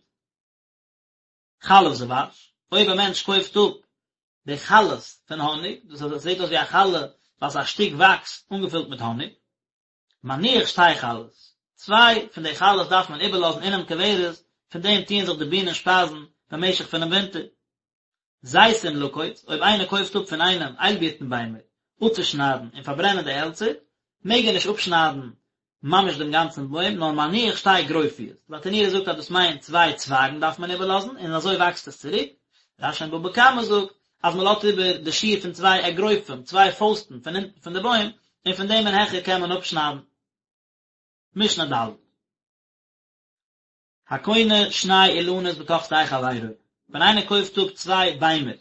חלב דבש, אויב א מענטש קויפט אפ די חלות פון האניג, דאס אז עס זעט אויס ווי א חלה ווייל עס איז א שטיק וואקס אנגעפילט מיט האניג, מניח שתי חלות, צוויי פון די חלות דארף מען איבערלאזן אינעם כוורת, פון דעם טוען זיך די בינען שפייזן במשך פונעם ווינטער. זיתים לקוץ, אויב איינער קויפט אפ פון איינעם איילבירטן ביימער אפצושניידן און פארברענען די העלצער, מעג ער נישט אפשניידן ממש דעם גאנצן בוים, נאר מניח שתי גרופיות, די ברטנורא זאגט אז דאס מיינט צוויי צווייגן דארף מען איבערלאזן, און אזוי וואקסט עס צוריק, רש"י אין בבא קמא זאגט אז מען לאזט איבער די שיעור פון צוויי אגרופים, צוויי פויסטן פון אונטן פון די בוים, און פון דעם און העכער קען מען אפשניידן. משנה ד'. הקונה שני אילנות בתוך שדה חברו, ווען איינער קויפט אפ צוויי ביימער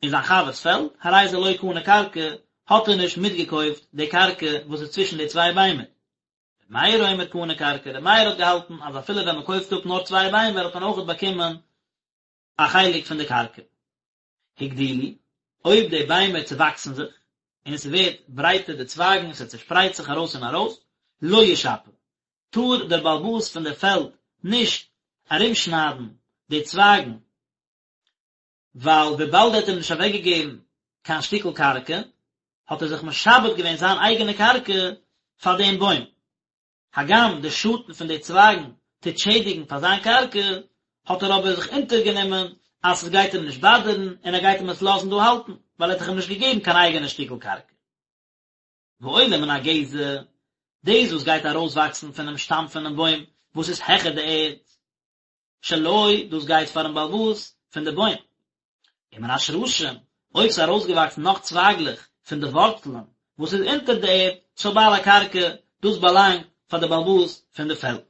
אין זיין חבר'ס פעלד, הרי זה לא קנה קרקע, האט ער נישט מיטגעקויפט די קרקע וואס איז צווישן די צוויי ביימער. ר' מאיר אומר קנה קרקע, ר' מאיר האט געהאלטן אז אפילו ווען מען קויפט אפ נאר צוויי ביימער האט מען אויכעט באקומען א חלק פון די קרקע. הגדילו, אויב די ביימער צעוואקסן זיך, און עס ווערט ברייטער די צווייגן, עס צעשפרייט זיך ארויס און ארויס, לא ישפה, טאר דער בעל הבית פון די פעלד נישט ארומשניידן די צווייגן, ווייל וויבאלד ער האט אים נישט אוועקגעגעבן קיין שטיקל קרקע, האט ער זיך משעבד געווען זיין אייגענע קרקע פאר דעם בוים. הגם די שאטן פון די צווייגן טוט שעדיגן פאר זיין קרקע, האט ער אבער זיך אונטערגענומען אז עס גייט אים נישט באדערן און ער גייט אים עס לאזן דא האלטן, ווייל ער האט דאך אים נישט געגעבן קיין אייגענע שטיקל קרקע. ועולה מן הגזע, דאס וואס גייט ארויסוואקסן פונעם שטאם פונעם בוים וואס איז העכער די ערד, שלו, דאס גייט פארן בעל הבית פון די בוים. ומן השרשים, אויב ס'איז ארויסגעוואקסן נאך צווייגלעך פון די ווארצלען וואס איז אונטער די ערד, של בעל הקרקע, דאס באלאנגט פאר די בעל הבית פון די פעלד.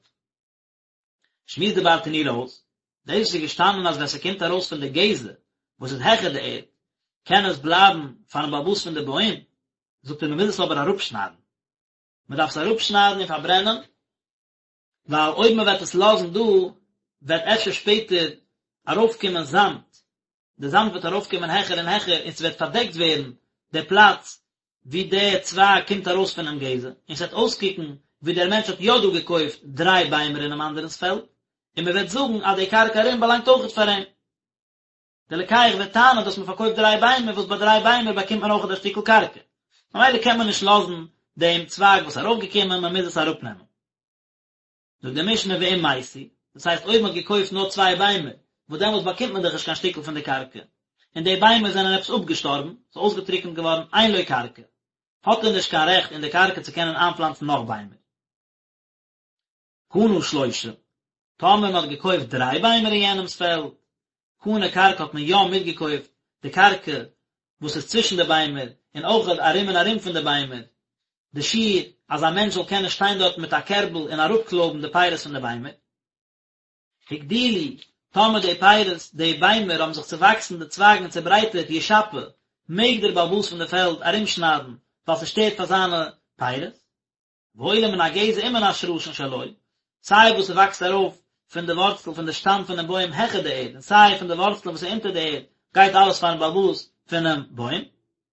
שמועסט די ברטנורא אויס, דאס וואס איז געשטאנען אז ווען ס'קומט ארויס פון די גזע וואס איז העכער די ערד, קען עס בלייבן פארן בעל הבית פון די בוים, זאגט ער מ'מוז עס אבער אראפשניידן. מ'דארף עס אראפשניידן און פארברענען. ווייל אויב מען וועט עס לאזן דא וועט אפשר שפעטער ארויפקומען זאמד, די זאמד וועט ארויפקומען העכער און העכער און ס'וועט פארדעקט ווערן די פלאץ ווי די צווייג קומט ארויס פונעם גזע, און ס'וועט אויסקוקן ווי דער מענטש האט יא דא געקויפט דריי ביימער אינעם אנדערנ'ס פעלד, און מען וועט זאגן אז די קרקע ארום באלאנגט אויכעט פאר אים. דער לוקח וועט טענה'ן אז מ'האט פארקויפט דריי ביימער וואס ביי דריי ביימער באקומט מען אויכעט א שטיקל קרקע, ממילא קען מען נישט לאזן דעם צווייג וואס איז ארויפגעקומען, מען מוז עס אראפנעמען. זאגט די משנה ואם מתו, דאס הייסט אויב מען האט געקויפט נאר צוויי ביימער, וואס דעמאלטס באקומט מען דאך נישט קיין שטיקל פון די קרקע, און די ביימער זענען עפעס אפגעשטארבן, ס'איז אויסגעטריקנט געווארן, אין לו קרקע, האט ער נישט קיין רעכט אין די קרקע צו קענען איינפלאנצן נאך ביימער. קנה שלושה, טאמער מען האט געקויפט דריי ביימער אין יענעמס פעלד, קנה קרקע האט מען יא מיטגעקויפט די קרקע וואס איז צווישן די ביימער און אויך ארום און ארום פון די ביימער, די שיעור אז א מענטש זאל קענען שטיין דארט מיט א קערבל און אראפקלויבן די פירות פון די ביימער. הגדילו, טאמער די פירות, די ביימער האבן זיך צעוואקסן די צווייגן און צעברייטערט ישפה, מעג דער בעל הבית פון די פעלד ארומשניידן ווייל ס'שטערט פאר זיינע פירות. והעולה מן הגזע ומן השרשין שלו, סיי וואס ס'וואקסט ארויף פון די ווארצל פון די שטאם פונעם בוים העכער די ערד און סיי פון די ווארצלען וואס איז אונטער די ערד, גייט אלעס פארן בעל הבית פונעם בוים.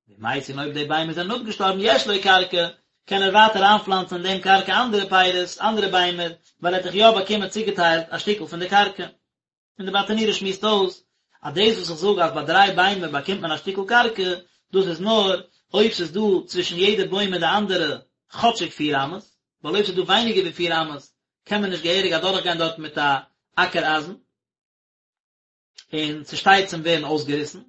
ואם מתו און אויב די ביימער זענען אפגעשטארבן יש לו קרקע, קען ער ווייטער איינפלאנצן אין דעם קרקע אנדערע פירות, אנדערע ביימער, ווייל ער האט דאך יא באקומען צוגעטיילט א שטיקל פון די קרקע. און די ברטנורא שמועסט אויס אז דאס וואס איך זאג אז ביי דריי ביימער באקומט מען א שטיקל קרקע, דאס איז נאר אויב ס'איז דא צווישן יעדע בוים און די אנדערע כאטשיג פיר אמות, ווייל אויב ס'איז דא ווייניגער ווי פיר אמות קען מען נישט געהעריג אדורכגיין דארט מיט א אקער אייזן, און ס'שטייט צום ווערן אויסגעריסן.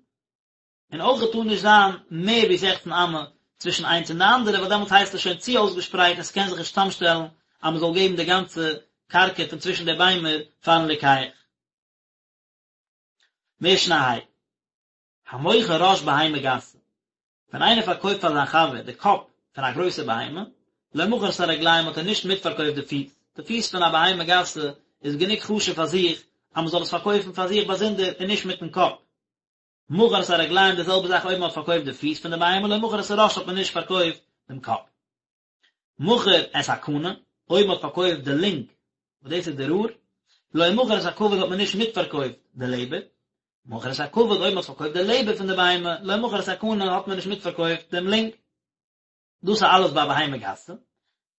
און אויך טאר נישט זיין מער ווי זעכצן אמה צווישן איינס און די אנדערע ווייל דעמאלטס הייסט עס שוין צו אויסגעשפרייט און ס'קען זיך נישט צאמשטעלן אז מ'זאל געבן די גאנצע קרקע פון צווישן די ביימער פארן לוקח. משנה ה'. המוכר ראש בהמה גסה, ווען איינער פארקויפט פאר זיין חבר די קאפ פון א גרויסע בהמה, לא מכר את הרגליים האט ער נישט מיטפארקויפט די פיס, די פיס פון א בהמה גסה איז גענוג חשוב פאר זיך אז מ'זאל עס פארקויפן פאר זיך באזונדער און נישט מיטן קאפ. מכר את הרגליים די זעלבע זאך אויב מען האט פארקויפט די פיס פון די בהמה לא מכר את הראש האט מען נישט פארקויפט דעם קאפ. מכר את הקנה אויב מען האט פארקויפט די לונג וואס דאס איז די רור לא מכר את הכבד האט מען נישט מיטפארקויפט די לעבער. מכר את הכבד אויב מען האט פארקויפט די לעבער פון די בהמה לא מכר את הקנה האט מען נישט מיטפארקויפט דעם לונג. דאס איז אלעס ביי א בהמה גסה,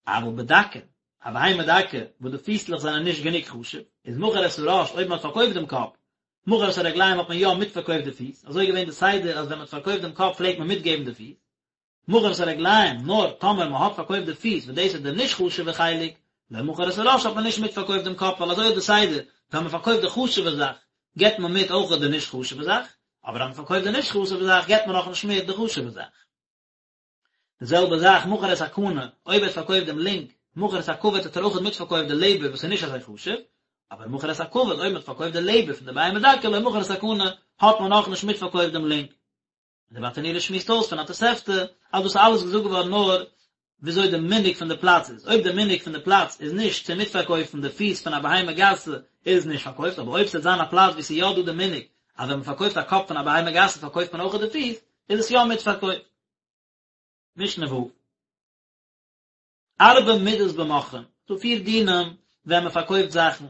אבל בדקה, א בהמה דקה וואס די פיסלעך זענען נישט גענוג חשוב, איז מכר את הראש אויב מען האט פארקויפט דעם קאפ, מכר את הרגליים האט מען יא מיטפארקויפט די פיס, אזוי איז געווען די סדר אז ווען מען האט פארקויפט דעם קאפ פלעגט מען מיטגעבן די פיס, מכר את הרגליים, נאר טאמער מען האט פארקויפט די פיס וואס דאס איז די נישט חשוב'ע חלק, לא מכר את הראש האט מען נישט מיטפארקויפט דעם קאפ ווייל אזוי איז די סדר, ווען מען פארקויפט די חשוב'ע זאך געבט מען מיט אויך די נישט חשוב'ע זאך, אבער אז מען פארקויפט די נישט חשוב'ע זאך געבט מען נאכנישט מיט די חשוב'ע זאך. די זעלבע זאך מכר את הקנה, אויב ער האט פארקויפט דעם לונג, מכר את הכבד האט ער אויך מיטפארקויפט די לעבער וואס איז נישט אזוי חשוב, אבער מכר את הכבד אויב מען האט פארקויפט די לעבער פון די בהמה דקה לא מכר את הקנה האט מען נאכנישט מיטפארקויפט דעם לונג. און די ברטנורא שמועסט אויס פון א תוספתא אז דאס איז אלעס געזאגט געווארן נאר וויאזוי די מנהג פון די פלאץ איז, אויב די מנהג פון די פלאץ איז נישט צו מיטפארקויפן די פיס פון א בהמה גסה איז עס נישט פארקויפט, אבער אויב ס'וועט זיין א פלאץ וואו ס'איז יא דא די מנהג אז ווען מ'פארקויפט א קאפ פון א בהמה גסה פארקויפט מען אויך די פיס, איז עס יא מיטפארקויפט. משנה ו'. ארבע מידות במוכרין, ס'דא פיר דינים ווען מען פארקויפט זאכן,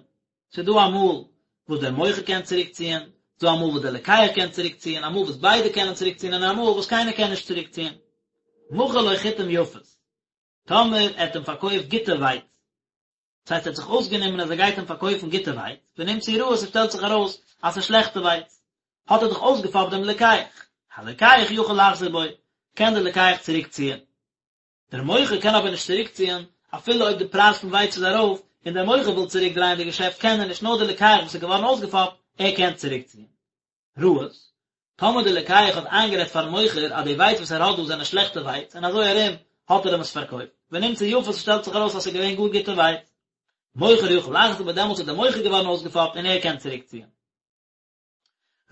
ס'איז דא אמאל וואס דער מוכר קען צוריקציען, ס'איז דא אמאל וואס דער לוקח קען צוריקציען, אמאל וואס ביידע קענען צוריקציען און אמאל וואס קיינער קען נישט צוריקציען. מכר לו חיטים יפות, טאמער ער האט אים פארקויפט גוטע ווייץ, דאס הייסט ער האט זיך אויסגענומען אז ער גייט אים פארקויפן גוטע ווייץ, ונמצאו רעות ס'שטעלט זיך ארויס אז ס'איז שלעכטע ווייץ, האט ער דאך אויסגעפאפט דעם לוקח, הלוקח יכול לחזור בו, קען דער לוקח צוריקציען. דער מוכר קען אבער נישט צוריקציען, אפילו אויב די פרייז פון ווייץ איז ארויף, און דער מוכר וויל צוריקדרייען די געשעפט קען ער נישט, נאר דער לוקח וואס איז געווארן אויסגעפאפט, ער קען צוריקציען. רעות, טאמער דער לוקח האט איינגערעדט פארן מוכר אז די ווייץ וואס ער האט דא זענען שלעכטע ווייץ, און אזוי ארום האט ער אים עס פארקויפט, ונמצאו יפות ס'שטעלט זיך ארויס אז ס'איז געווען גאר גוטע ווייץ. מוכר יכול לחזור בו דעמאלטס איז דער מוכר געווארן אויסגעפאפט און ער קען צוריקציען.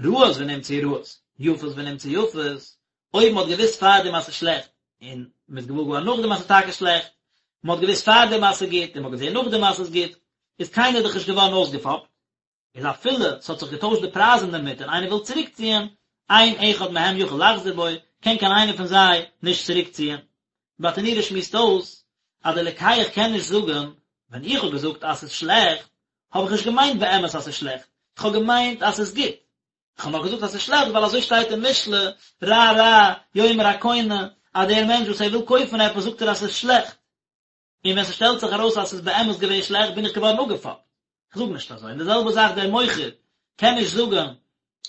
רעות ונמצאו רעות, יפות ונמצאו יפות, אויב מ'האט געוואוסט פארדעם אז ס'איז שלעכט, און מ'איז געוואר געווארן נאכדעם אז ס'איז טאקע שלעכט, מ'האט געוואוסט פארדעם אז ס'איז גוט, און מ'האט געזען נאכדעם אז ס'איז גוט, איז קיינער דאך נישט געווארן אויסגעפאפט, איז אפילו ס'האט זיך געטוישט די פרייז אינדערמיט און איינער וויל צוריקציען, אין אחד מהם יכול לחזור בו, קען קיין איינער פון זיי נישט צוריקציען. ברטנורא שמועסט אויס אז דער לוקח קען נישט זאגן. ווען איך האב געזאגט אז ס'איז שלעכט, האב איך נישט געמיינט באמת אז ס'איז שלעכט, איך האב געמיינט אז ס'איז גוט. איך האב נאר געזאגט אז ס'איז שלעכט ווייל אזוי שטייט אין משלי, רע רע, יאמר הקונה, אז דער מענטש וואס ער וויל קויפן עפעס זאגט ער אז ס'איז שלעכט. און ווען ס'שטעלט זיך ארויס אז ס'איז באמת געווען שלעכט בין איך געווארן אפגעפאפט. כ'זאג נישט אזוי. און די זעלבע זאך דער מוכר קען נישט זאגן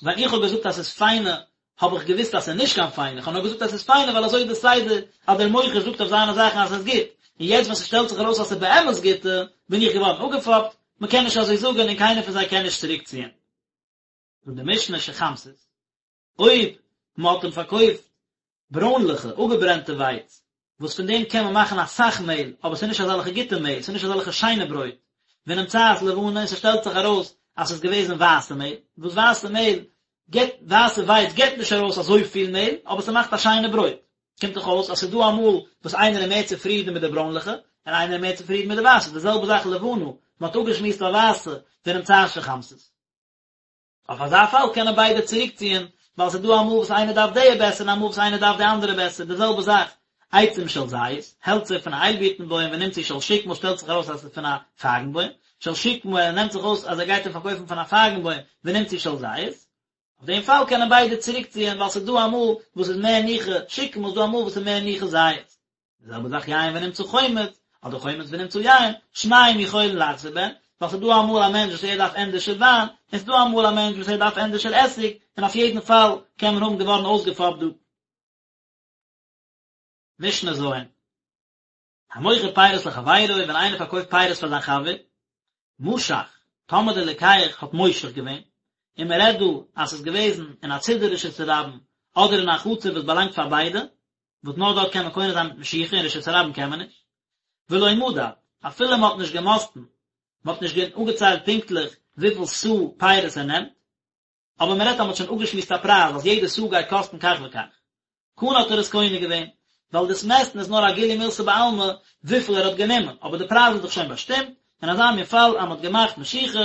ווען איך האב געזאגט אז ס'איז פיינע האב איך געוואוסט אז ס'איז נישט קיין פיינע, כ'האב נאר געזאגט אז ס'איז פיינע ווייל אזוי איז די סדר אז דער מוכר זאגט אויף זיינע זאכן אז ס'איז גוט, און יעצט ווען ס'שטעלט זיך ארויס אז ס'איז באמת גוטע בין איך געווארן אפגעפאפט. מ'קען נישט אזוי זאגן און קיינער פון זיי קען נישט צוריקציען. זאגט די משנה שחמתית, אויב מ'האט אים פארקויפט ברוינליכע, אפגעברענטע ווייץ, וואס פון דעם קען מען מאכן אסאך מעהל, אבער ס'איז נישט אזעלכע גוטע מעהל, ס'איז נישט אזעלכע שיינע ברויט, ונמצאת לבנה, און ס'שטעלט זיך ארויס אז ס'איז געוועזן ווייסע מעהל, וואס ווייסע מעהל גיבט, ווייסע ווייץ גיבט נישט ארויס אזויפיל מעהל, אבער ס'מאכט א שיינע ברויט. קומט דאך אויס אז ס'איז דא אמאל וואס איינער איז מער צופרידן מיט די ברוינליכע, און איינער איז מער צופרידן מיט די ווייסע, די זעלבע זאך לבנה, מ'האט אפגעשמועסט א ווייסע, ונמצאת שחמתית. אויף אזא פאל קענען ביידע צוריקציען, ווייל ס'איז דא אמאל וואס איינער דארף די בעסער און אמאל וואס איינער דארף די אנדערע בעסער, די זעלבע זאך עצים של זית, העלצער פון א איילבירטן בוים ונמצאו של שקמה שטעלט זיך ארויס אז ס'איז פון א פייגן בוים, של שקמה ער נעמט זיך אויס אז ער גייט אים פארקויפן פון א פייגן בוים ונמצאו של זית, אויף דעם פאל קענען ביידע צוריקציען ווייל ס'איז דא אמאל וואס איז מער ניחא שקמה ס'איז דא אמאל וואס איז מער ניחא זית. די זעלבע זאך יין ונמצא חומץ, אדער חומץ ונמצא יין, שניהם יכולין לחזור בהן, ווייל ס'איז דא אמאל א מענטש וואס ער דארף ענדערשער וויין, און ס'איז דא אמאל א מענטש וואס ער דארף ענדערשער עסיג, און אויף יעדן פאל קען מען האבן געווארן אויסגעפאפט דא. משנה ז'. המוכר פירות לחבירו, ווען איינער פארקויפט פירות פאר זיין חבר, משך, טאמער דער לוקח האט מושך געווען, און מען רעדט דא אז ס'איז געוועזן אין א צידי רשות הרבים, אדער אין א חצר וואס באלאנגט פאר ביידע, וואס נאר דארט קען מען קונה זיין מיט משיכה אין רשות הרבים קען מען נישט, ולא מדד, אפילו מען האט נישט געמאסטן, מען האט נישט אפגעציילט פונקטליך וויפיל סאה פירות ער נעמט, אבער מען רעדט אז מען האט שוין אפגעשמועסט א פרייז אז יעדע סאה גייט קאסטן כך וכך, קנה האט ער עס קונה געווען, ווייל דאס מעסטן איז נאר א גילוי מילתא בעלמא וויפיל ער האט גענומען, אבער די פרייז איז דאך שוין באשטימט, אין אזא מין פאל אז מען האט געמאכט משיכה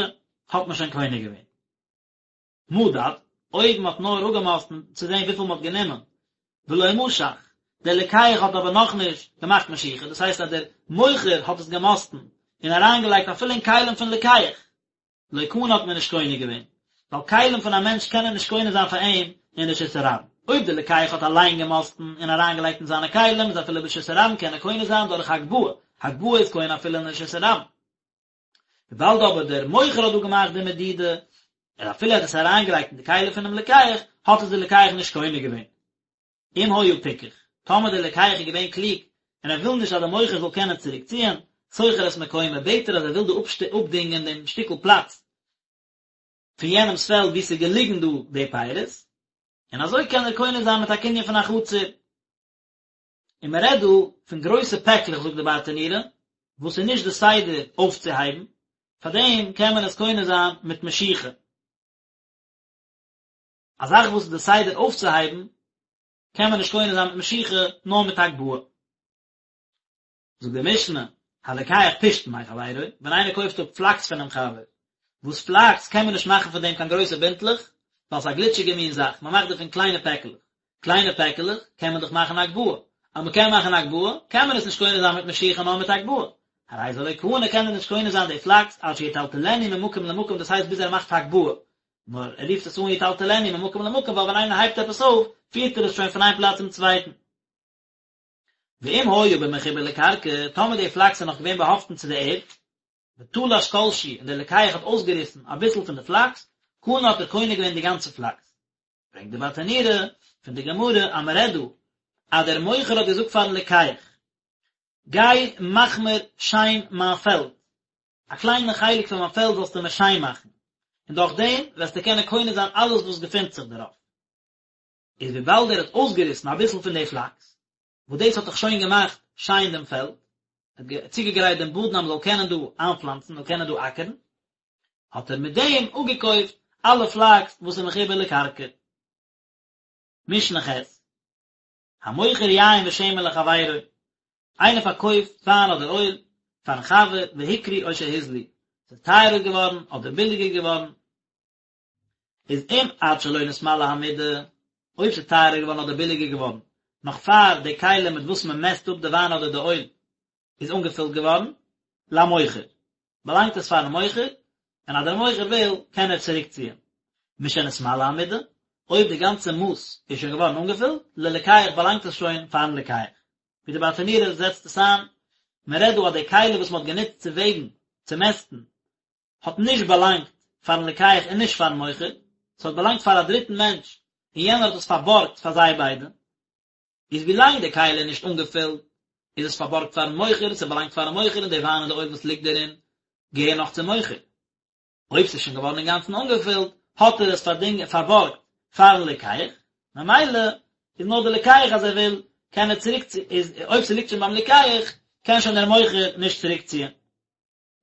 האט מען שוין קונה געווען. מדד, אויב מען האט נאר אפגעמאסטן צו זען וויפיל מען האט גענומען, ולא משך, דער לוקח האט אבער נאכנישט געמאכט משיכה, דאס הייסט אז דער מוכר האט עס געמאסטן און אריינגעלייגט אפילו אין כלים פון לוקח, לא קנה האט מען נישט קונה געווען, ווייל כלים פון א מענטש קענען נישט קונה זיין פאר אים אין רשות הרבים. אויב דער לוקח האט אליין געמאסטן און אריינגעלייגט אין זיינע כלים איז אפילו ברשות הרבים קען ער קונה זיין דורך הגבהה, הגבהה איז קונה אפילו אין רשות הרבים. וויבאלד אבער דער מוכר האט דא געמאכט די מדידה, און אפילו ער האט עס אריינגעלייגט אין די כלים פונעם לוקח, האט עס דער לוקח נישט קונה געווען. אם היה פיקח, טאמער דער לוקח איז געווען קלוג, און ער וויל נישט אז דער מוכר זאל קענען צוריק ציען, שוכר את מקומו, בעט ער אז ער וויל דא אפדינגען דעם שטיקל פלאץ פון יענעמ'ס פעלד וואו ס'איז געליגן דא די פירות, און אזוי קען ער קונה זיין מיט א קנין פון א חצר. און מען רעדט דא פון גרויסע פעקלעך זאגט די ברטנורא, וואס איז נישט די סדר אויפצוהייבן, פארדעם קען מען עס קונה זיין מיט משיכה. א זאך וואס איז די סדר אויפצוהייבן, קען מען נישט קונה זיין מיט משיכה, נאר מיט הגבהה. זאגט די משנה, הלוקח פשתן מחבירו, ווען איינער קויפט אפ פלאקס פונעם חבר, וואס פלאקס קען מען נישט מאכן פון דעם קיין גרויסע בינטלעך, ווייל ס'איז א גליטשיגע מין זאך, מען מאכט דערפון קליינע פעקלעך, קליינע פעקעלעך קען מען דאך מאכן הגבהה, אז מען קען מאכן הגבהה, קען מען עס נישט קונה זיין מיט משיכה נאר מיט הגבהה, הרי זה לא קנה קען ער נישט קונה זיין די פלאקס עד שיטלטלנו ממקום למקום דאס הייסט ביז ער מאכט הגבהה, נאר ער רופט עס אן יטלטלנו ממקום למקום ווייל ווען איינער הייבט עפעס אויף פירט ער עס שוין פון איין פלאץ צום צווייטן. ואם היה במחובר לקרקע, טאמער די פלאקס איז נאך געווען באהאפטן צו די ערד, ותלש כל שהוא און דער לוקח האט אויסגעריסן אביסל פון די פלאקס, קנה האט ער קונה געווען די גאנצע פלאקס. ברענגט די ברטנורא פון די גמרא אז מען רעדט דא אז דער מוכר האט געזאגט פארן לוקח, גיי מאך מיר שיין מיין פעלד, א קליינע חלק פון מיין פעלד זאלסטו מיר שיין מאכן, און דורך דעם וועסטו קענען קונה זיין אלעס וואס געפינט זיך דערויף. איז וויבאלד ער האט אויסגעריסן אביסל פון די פלאקס, וואס דאס האט דאך שוין געמאכט שיין דעם פעלד, ער האט צוגעגרייט דעם באדן אז מען זאל קענען דא איינפלאנצן, מען זאל קענען דא אקערן, האט ער מיט דעם אפגעקויפט אלע פלאקס וואס איז מחובר לקרקע. משנה ח', המוכר יין ושמן לחבירו, איינער פארקויפט וויין אדער אויל פארן חבר והיקרו או שהוזלו, ס'איז טייערער געווארן אדער ביליגער געווארן, איז אם עד שלא נתמלאה המידה, אויב ס'איז טייערער געווארן אדער ביליגער געווארן, נאך פאר די כלי מיט וואס מען מעסט אפ די וויין אדער די אויל איז אנגעפילט געווארן, למוכר, באלאנגט עס פארן מוכר, און אז דער מוכר וויל קען ער צוריקציען. משנתמלאה המידה, אויב די גאנצע מאס איז שוין געווארן אנגעפילט, ללוקח באלאנגט עס שוין פארן לוקח. ווי די ברטנורא זעצט עס איין, מען רעדט דא אז די כלי וואס מען האט גענוצט צו וועגן, צו מעסטן, האט נישט באלאנגט פארן לוקח און נישט פארן מוכר, ס'האט באלאנגט פאר א דריטן מענטש און יענער האט עס פארבארגט פאר זיי ביידע. איז ווילאנג די כלי איז נישט אנגעפילט איז עס פארבארגט פארן מוכר, ס'באלאנגט פארן מוכר און די וויין און די אויל וואס ליגט דערין געהער נאך צום מוכר. אויב ס'איז שוין געווארן אינגאנצן אנגעפילט האט ער עס פארדינג פארבארגט פארן לוקח, ממילא איז נאר די לוקח אז ער וויל קען ער צוריק איז אויב ס'ליגט שוין ביים לוקח קען שוין דער מוכר נישט צוריקציען.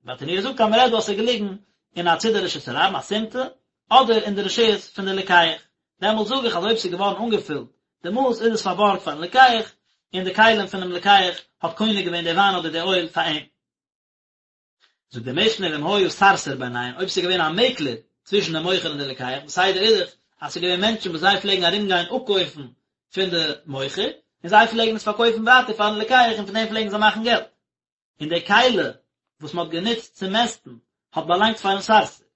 ברטנורא זאגט אז מ'רעדט דא אז ס'איז געליגן אין א צידי רשות הרבים א סימטא, אדער אין די רשות פון די לוקח, דעמאלט זאג איך אז אויב ס'איז געווארן אנגעפילט די מאס איז עס פארבארגט פארן לוקח, און די כלים פונעם לוקח האט קונה געווען די וויין אדער די אויל פאר אים. זאגט די משנה ואם היה סרסור ביניהן, אויב ס'איז געווען א מעקלער צווישן די מוכר און די לוקח, די סדר איז דאך אז ס'איז געווען מענטשן וואס זיי פלעגן ארום גיין אפקויפן פון די מוכר, און זיי פלעגן עס פארקויפן ווייטער פארן לוקח און פון דעם פלעגן זיי מאכן געלט. און די כלי וואס מען האט גענוצט צו מעסטן האט באלאנגט פארן סרסור.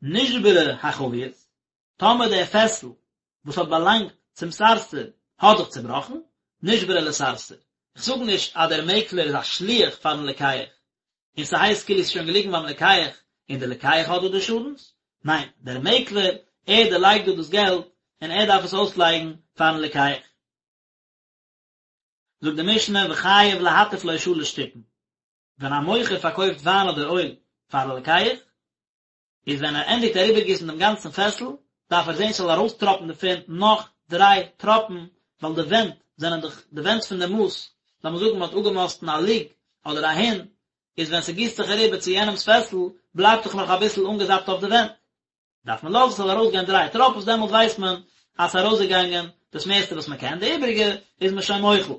נשברה החבית, טאמער דער פעסל וואס האט באלאנגט צום סרסור האט זיך צובראכן, נשברה לסרסור. איך זאג נישט אז דער מעקלער איז א שליח פארן לוקח, און ס'הייסט כאילו ס'איז שוין געליגן ביים לוקח און דער לוקח האט דא די שאדנס, ניין, דער מעקלער, ער דערלייגט דא דאס געלט און ער דארף עס אויסלייגן פארן לוקח. זאגט די משנה וחייב להטיף לו שלש טיפין, ווען א מוכר פארקויפט וויין אדער אויל פאר א לוקח, איז ווען ער ענדיגט אריבערגיסן דעם גאנצן פעסל, דארף ער זען ס'זאל ארויסטראפן דערפון נאך דריי טראפן, ווייל די ווענט זענען דאך די ווענט פון די מאס, לאמיר זאגן מ'האט אפגעמאסטן א לוג אדער א הין, איז ווען ס'גיסט זיך אריבער צו יענעמ'ס פעסל, בלייבט דאך נאך אביסל אנגעזאפט אויף די ווענט. דארף מען לאזן ס'זאל ארויסגיין דריי טראפן, דעמאלט ווייסט מען אז ס'איז ארויסגעגאנגען דאס מערסטע וואס מען קען, די איבעריגע איז מען שוין מוחל.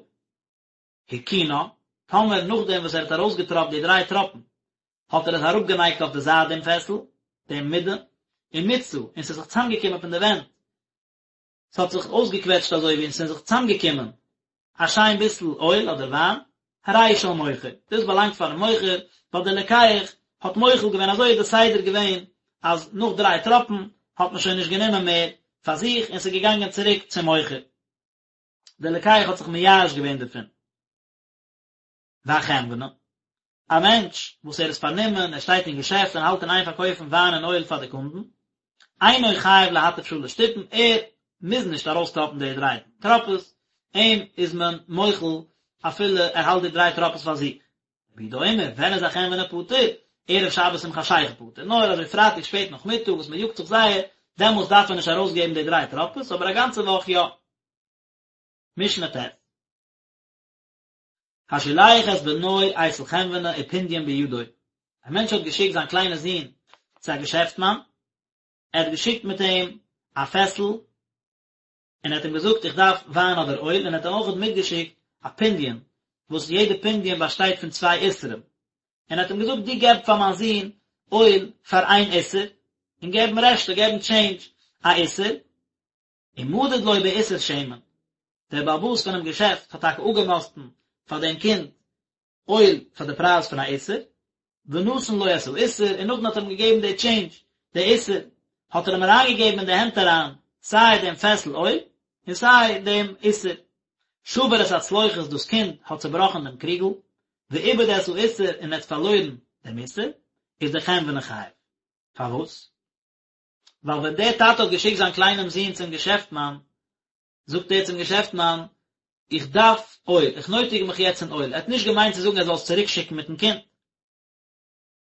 הרכינה, טאמער נאכדעם וואס ער האט ארויסגעטראפט די דריי טראפן, האט ער עס אראפגענייגט אויף די זייט דעם פעסל, דעם מידה, ומיצה, און ס'איז זיך צוזאמגעקומען פון די ווענט, ס'האט זיך אויסגעקוועטשט אזוי ווי און ס'איז זיך צוזאמגעקומען א שיין ביסל אויל אדער וויין, הרי הוא של מוכר, דאס באלאנגט פארן מוכר, ווייל דער לוקח האט מוחל געווען, אזוי איז די סדר געווען אז נאך דריי טראפן האט מען שוין נישט גענומען מער פאר זיך און ס'איז געגאנגען צוריק צום מוכר. דער לוקח האט זיך מייאש געווען דערפון. והחנווני, א מענטש וואס ער איז פארנומען, ער שטייט אין געשעפט און האלט אין איין פארקויפן וויין און אויל פאר די קונדן, אינו חייב להטיף שלש טיפין, ער מוז נישט ארויסטראפן די דריי טראפעס, אים איז מען מוחל אפילו ער האלט די דריי טראפעס פאר זיך. רבי יהודה אומר, ווען איז א חנווני פטור? ערב שבת עם חשיכה פטור, נאר אזוי פרייטאג שפעט נאכמיטאג וואס מען יאגט זיך זייער, דעמאלס דארף ער נישט ארויסגעבן די דריי טראפעס, אבער א גאנצע וואך יא. משנה ט'. השולח את בנו אצל חנווני ופונדיון בידו, א מענטש האט געשיקט זיין קליינע זון צו א געשעפטמאן, ער האט געשיקט מיט אים א פעסל, און ער האט אים געזאגט איך דארף וויין אדער אויל, און ער האט אים אויך מיטגעשיקט א פונדיון, וואס יעדע פונדיון באשטייט פון צוויי איסרים, און ער האט אים געזאגט דו געב פאר מיין זון אויל פאר איין איסר, און געב אים רעשטע, געב אים טשעינדזש א איסר, ומדד לו באיסר שמן, דער בעל הבית פונעם געשעפט האט טאקע אפגעמאסטן פאר דעם קינד אויל פאר די פרייז פון א איסר, ונתן לו את האיסר, און נאכדעם האט ער אים געגעבן די טשעינדזש, די איסר, האט ער אים אריינגעגעבן אין די הענט אריין סיי דעם פעסל אויל, און סיי דעם איסר. שבר את הצלוחית, דאס קינד האט צעבראכן דעם קריגל, ואיבד את האיסר, און ער האט פארלוירן דעם איסר, איז דער חנווני חייב. פארוואס? ווייל ווען דער טאטע האט געשיקט זיין קליינעם זון צום געשעפטמאן, זאגט ער צום געשעפטמאן, איך דארף אויל, איך נויטיג מיך יעצט אין אויל, ער האט נישט געמיינט צו זאגן ער זאל עס צוריק שיקן מיטן קינד.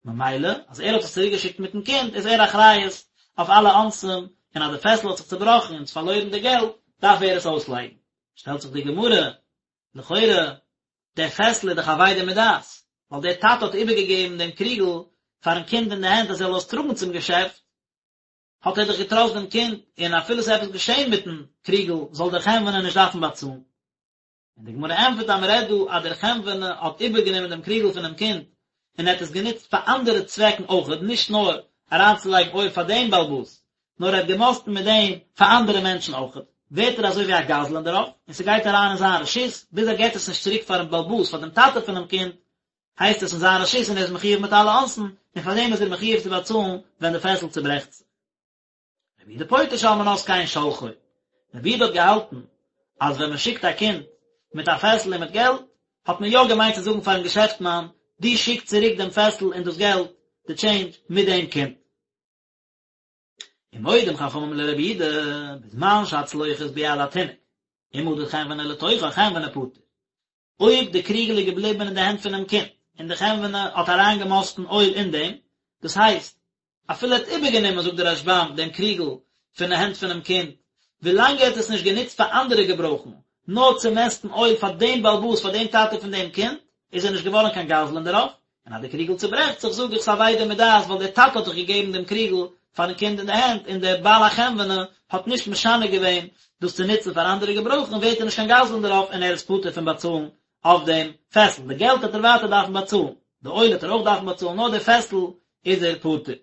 ממילא, אז ער האט עס צוריק געשיקט מיטן קינד, איז ער אחריות אויף אלע אונסים, און אז די פעסל האט זיך צובראכן און פארלוירן די געלט, דארף ער עס אויסלייגן. שטעלט זיך די גמרא, לכאורה, דער פעסל איז דאך אבידה מדעת, ווייל דער טאטע האט איבערגעגעבן דעם קריגל פארן קינד אין די הענט אז ער זאל עס טראגן צום געשעפט, האט ער דאך געטראסט דעם קינד, און אפילו ס'איז עפעס געשען מיטן קריגל זאל דער חנווני נישט דארפן באצאלן. און די גמרא ענטפערט אז מ'רעדט דא אז דער חנווני האט איבערגענומען דעם קריגל פונעם קינד און ער האט עס גענוצט פאר אנדערע צוועקן אויכעט, נישט נאר אריינצולייגן אויל פאר דעם בעל הבית, נאר ער האט געמאסטן מיט דעם פאר אנדערע מענטשן אויכעט, ווערט ער אזוי ווי א גזלן דערויף, און ס'גייט אריין אין זיין רשות, ביז ער געט עס נישט צוריק פארן בעל הבית, פאר דעם טאטע פונעם קינד. הייסט עס אין זיין רשות און ער איז מחיוב מיט אלע אונסין, און פאר דעם איז ער מחיוב צו באצאלן ווען די פעסל צוברעכט זיך. רבי יהודה פוטר שעל מנת כן שולחו. רבי יהודה האט געהאלטן אז ווען מען שיקט א קינד מיט א פעסל און מיט געלט, האט מען יא געמיינט צו זאגן פארן געשעפטמאן, דו שיק צוריק דעם פעסל און דאס געלט, די טשעינדזש, מיט דעם קינד. ומודים חכמים לרבי יהודה, בזמן שהצלוחית ביד התינוק, אם מדד חנווני לתוכה חנווני פטור. אויב די קריגל איז געבליבן אין די הענט פונעם קינד, און די חנווני האט אריינגעמאסטן אויל אין דעם, דאס הייסט, אפילו ער האט איבערגענומען, זאגט דער רשב"ם, דעם קריגל פון די הענט פונעם קינד, ווילאנג ער האט עס נישט גענוצט פאר אנדערע געברויכן, נאר צו מעסטן אויל פאר דעם בעל הבית, פאר דעם טאטע פון דעם קינד, איז ער נישט געווארן קיין גזלן דערויף, און אז די קריגל צוברעכט זיך, זאג איך ס'איז אבידה מדעת, ווייל דער טאטע האט דאך געגעבן דעם קריגל פארן קינד אין די הענט, און דער בעל החנווני האט נישט משנה געווען דאס צו נוצן פאר אנדערע געברויכן, ווערט ער נישט קיין גזלן דערויף און ער איז פטור פון באצאלן אויף דעם פעסל. די געלט וועט ער ווייטער דארפן באצאלן, די אויל וועט ער אויך דארפן באצאלן, נאר די פעסל איז ער פטור.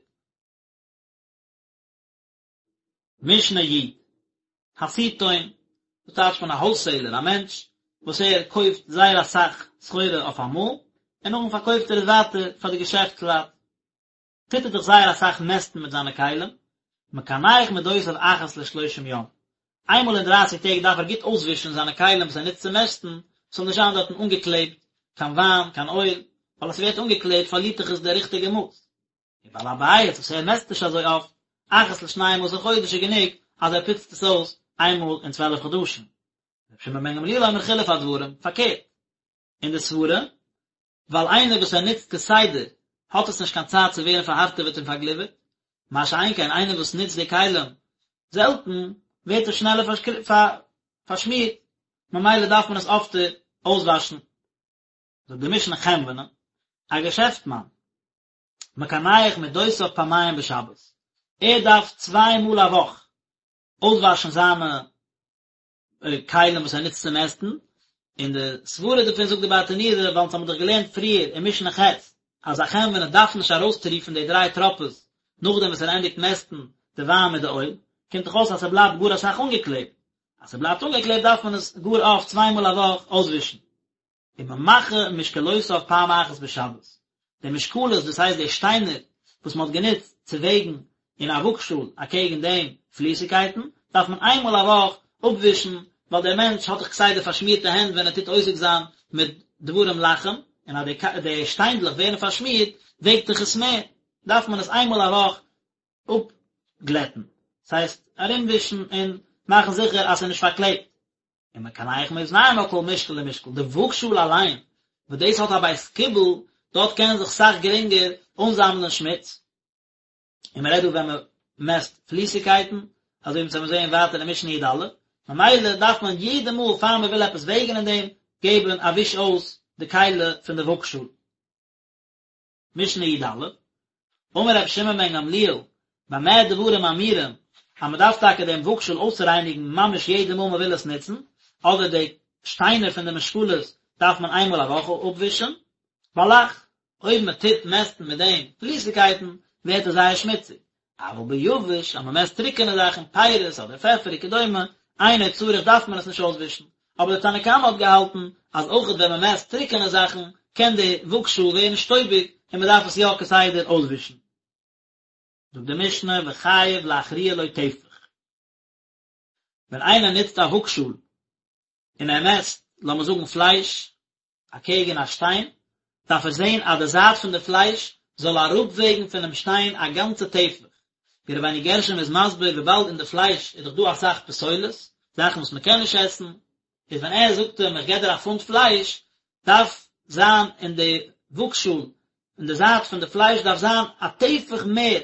משנה י, הסיטון, דאס טייטשט מען א האלסעילער, א מענטש וואס ער קויפט זייער אסאך סחורה אויף אמאל, און נאכדעם פארקויפט ער עס ווייטער פאר די געשעפטסלייט. טוט ער דאך זייער אסאך מעסטן מיט זיינע כלים, מקנח מדותיו אחת לשלושים יום, איינמאל אין דרייסיג טעג דארף ער גוט אויסווישן זיינע כלים וואס ער נוצט צו מעסטן, ס'זאל נישט זיין דארטן אנגעקלעבט קיין וויין, קיין אויל, ווייל אז ס'ווערט אנגעקלעבט פארלירט דאך עס די ריכטיגע מאס. ובעל הבית וואס ער מעסט נישט אזוי אפט, אחת לשנים עשר חודש איז גענוג אז ער פוצט עס אויס איינמאל אין צוועלף חדשים. רבי שמעון בן גמליאל אומר חילוף הדברים, פארקערט אין די סברה, ווייל איינער וואס ער נוצט כסדר האט עס נישט קיין צייט צו ווערן פארהארטעוועט און פארגליווערט, מה שאין כן איינער וואס נוצט די כלים זעלטן ווערט עס שנעלער פארשמירט, ממילא דארף מען עס אפטער אויסוואשן. זאגט די משנה חנווני, א געשעפטמאן, מקנח מדותיו פעמיים בשבת, ער דארף צוויי מאל א וואך אויסוואשן זיינע כלים וואס ער נוצט צו מעסטן, און די סברה דערפון זאגט די ברטנורא, ווייל אונז האבן דאך געלערנט פריער אין משנה ח' אז א חנווני דארף נישט ארויסטריפן די דריי טראפעס נאכדעם וואס ער ענדיגט מעסטן די וויין מיט די אויל, קומט דאך אויס אז ס'בלייבט גאר אסאך אנגעקלעבט, אז ס'בלייבט אנגעקלעבט דארף מען עס גאר אפט צוויי מאל א וואך אויסווישן. וממחה משקלותיו פעם אחת בשבת, די משקלות דאס הייסט די שטיינער וואס מען האט גענוצט צו וועגן אין א וואגשאל אקעגן דעם פליסיגקייטן, דארף מען איינמאל א וואך אפווישן, ווייל דער מענטש האט דאך כסדר פארשמירטע הענט ווען ער טוט עוסק זיין מיט דברים לחים, און אז די שטיינדלעך ווערן פארשמירט וועגט דאך עס מער, דארף מען עס איינמאל א וואך אפגלעטן, דאס הייסט ארומווישן און מאכן זיכער אז ס'איז נישט פארקלעבט. ומקנח מאזנים על כל משקל ומשקל, די וואגשאל אליין, וואס דאס האט א בית קיבול, דארט קען זיך סאך גרינגער אנזאמלען שמוץ, און מען רעדט דא ווען מען מעסט פליסיגקייטן, אזוי ווי אונז וועלן זעהן ווייטער אין משנה י"א, ממילא דארף מען יעדע מאל פאר מען וויל עפעס וועגן אין דעם, געבן א וויש אויס די כלי פון די וואגשאל. משנה י"א, אמר רבי שמעון בן גמליאל, במה דברים אמורים, אז מען דארף טאקע דעם וואגשאל אויסרייניגן ממש יעדע מאל מען וויל עס נוצן, אדער די שטיינער פון די משקלות דארף מען איינמאל א וואך אפווישן, בלח, אויב מען טוט מעסטן מיט דעם פליסיגקייטן, ווערט עס זייער שמוציג, אבל ביבש, אז מען מעסט טרוקענע זאכן, פירות אדער פעפער וכדומה, אינו צריך דארף מען עס נישט אויסווישן. אבער דער תנא קמא האט געהאלטן אז אויכעט ווען מען מעסט טרוקענע זאכן קען די וואגשאל ווערן שטויביג און מען דארף עס יא כסדר אויסווישן. זאגט די משנה וחייב להכריע לו טפח. ווען איינער נוצט א וואגשאל און ער מעסט, לאמיר זאגן פלייש, אקעגן א שטיין, דארף ער זען אז די זייט פון די פלייש זאל אראפוועגן פונעם שטיין א גאנצע טפח, ווי רבינו גרשום איז מסביר וויבאלד אין די פלייש איז דאך דא אסאך פסולת, זאכן וואס מען קען נישט עסן, איז ווען ער זאגט אים איך געב דיר א פונט פלייש, דארף זיין אין די וואגשאל אין די זייט פון די פלייש דארף זיין א טפח מער,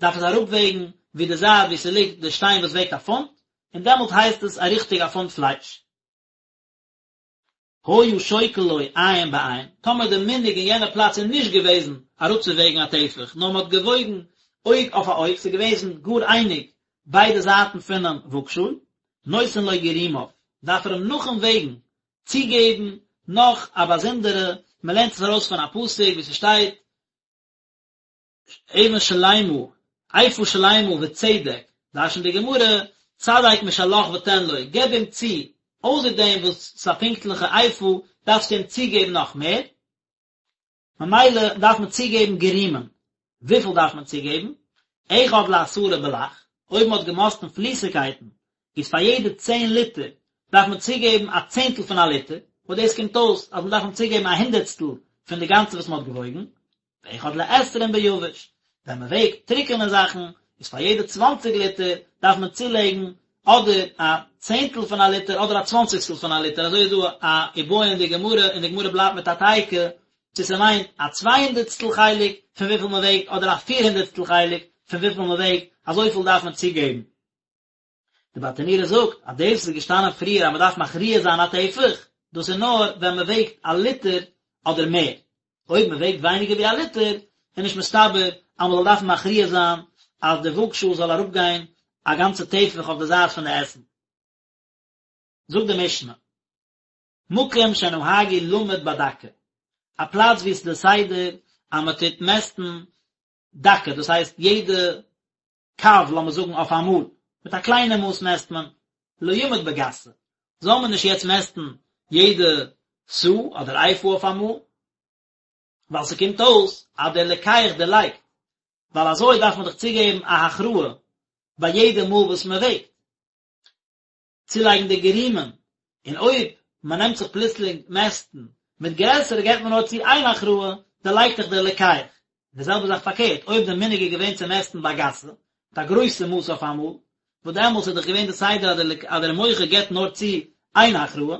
דארף עס אראפוועגן ווי די זייט ווי ס'ליגט די שטיין וואס וועגט א פונט, און דעמאלט הייסט עס א ריכטיג א פונט פלייש. היה שוקל לו עין בעין, טאמער די מנהג אין יענע פלאץ איז נישט געוועזן אראפצווועגן א טפח, נאר מען האט געוואויגן אויג אויף א אויג, ס'איז געוועזן גאר אייניג ביידע זייטן פונעם וואגשאל, נותן לו גירומיו, דארף ער אים נאכן וועגן צוגעבן נאך א באזונדערע, מען לערנט עס ארויס פון א פסוק ווי ס'שטייט, אבן שלימה, איפה שלימה וצדק, דרש'נט די גמרא, צדק משלך ותן לו, געב אים צו, אויסער דעם וואס ס'איז א פונקטליכע איפה, דארפסטו אים צוגעבן נאך מער. ממילא דארף מען צוגעבן גרימין, וויפיל דארף מען צוגעבן? אחד לעשרה בלח, אויב מען האט געמאסטן פליסיגקייטן, איז פאר יעדע צען ליטער דארף מען צוגעבן א צענטל פון א ליטער, וואס דאס קומט אויס אז מען דארף אים צוגעבן א הונדערטסטל פון די גאנצע וואס מען האט געוואויגן, ואחד לעשרים ביבש, ווען מען וועגט טרוקענע זאכן, איז פאר יעדע צוואנציג ליטער דארף מען צולייגן אדער א צענטל פון א ליטער אדער א צוואנציגסטל פון א ליטער, אזוי איז דא א איבעיא אין די גמרא, און די גמרא בלייבט מיט א תיקו, צו ס'מיינט א צוויי הונדערטסטל חלק פון וויפיל מען וועגט אדער א פיר הונדערטסטל חלק פון וויפיל מען וועגט, אזויפיל דארף מען צוגעבן. די ברטנורא זאגט אז דאס וואס איז געשטאנען פריער אז מען דארף מכריע זיין א טפח, דאס איז נאר ווען מען וועגט א ליטער אדער מער, אויב מען וועגט ווייניגער ווי א ליטער איז נישט מסתבר אז מען זאל דארפן מכריע זיין אז די וואגשאל זאל אראפגיין א גאנצע טפח אויף די זייט פון די עסן. זאגט די משנה, מקום שנהגו למוד בדקה, א פלאץ וואו עס איז די סדר אז מען טוט מעסטן דקה, דאס הייסט יעדע קב, לאמיר זאגן אויף א מאל, מיט א קליינע מאס מעסט מען, לא ימוד בגסה, זאל מען נישט יעצט מעסטן יעדע סאה אדער איפה אויף א מאל, ווייל ס'קומט אויס אז דער לוקח דערלייגט, ווייל אזוי דארף מען דאך צוגעבן א הכרעה ביי יעדע מאל וואס מען וועגט. צולייגן די גרימין, און אויב מען נעמט זיך פלוצלינג מעסטן מיט גרעסערע געבט מען נאר צו איין הכרעה, דערלייגט דאך דער לוקח. די זעלבע זאך פארקערט, אויב די מנהג איז געווען צו מעסטן בגסה, מיט א גרויסע מאס אויף אמאל, וואס דעמאלס איז דאך געווען די סדר אז דער מוכר געבט נאר צו איין הכרעה,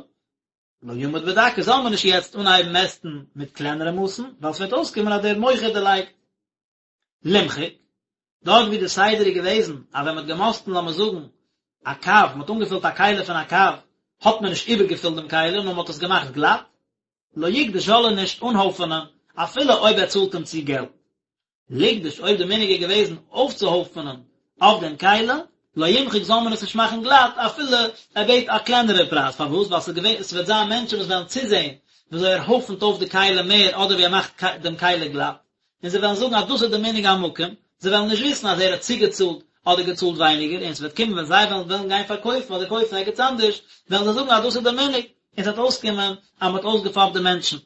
לא ימוד בדקה, זאל מען נישט יעצט אנהייבן מעסטן מיט קלענערע מאסן, ווייל ס'וועט אויסקומען אז דער מוכר דערלייגט. למחוק, דארט ווי די סדר איז געוועזן אז ווען מען האט געמאסטן לאמיר זאגן א קב, מען האט אנגעפילט א כלי פון א קב, האט מען נישט איבערגעפילט דעם כלי נאר מען האט עס געמאכט גלאט, לא יגדוש זאל ער נישט אנהויפענען אפילו אויב ער צאלט אים צו געלט. לגדוש אויב די מנהג איז געוועזן אויפצוהויפענען אויף דעם כלי, לא ימחוק זאל מען עס נישט מאכן גלאט אפילו ער בעט א קלענערע פרייז, פארוואס? ווייל ס'איז געווען, ס'וועט זיין מענטשן וואס וועלן צוזען וויאזוי ער הויפנט אויף די כלי מער אדער ווי ער מאכט דעם כלי גלאט, און זיי וועלן זאגן אז דאס איז די מנהג המקום, זיי וועלן נישט וויסן אז ער האט צוגעצאלט אדער געצאלט ווייניגער, און ס'וועט קומען ווען זיי וועלן וועלן גיין פארקויפן אדער קויפן ערגעץ אנדערש, וועלן זיי זאגן אז דאס איז די מנהג, און ס'וועט אויסקומען אז מ'האט אויסגעפאפט די מענטשן.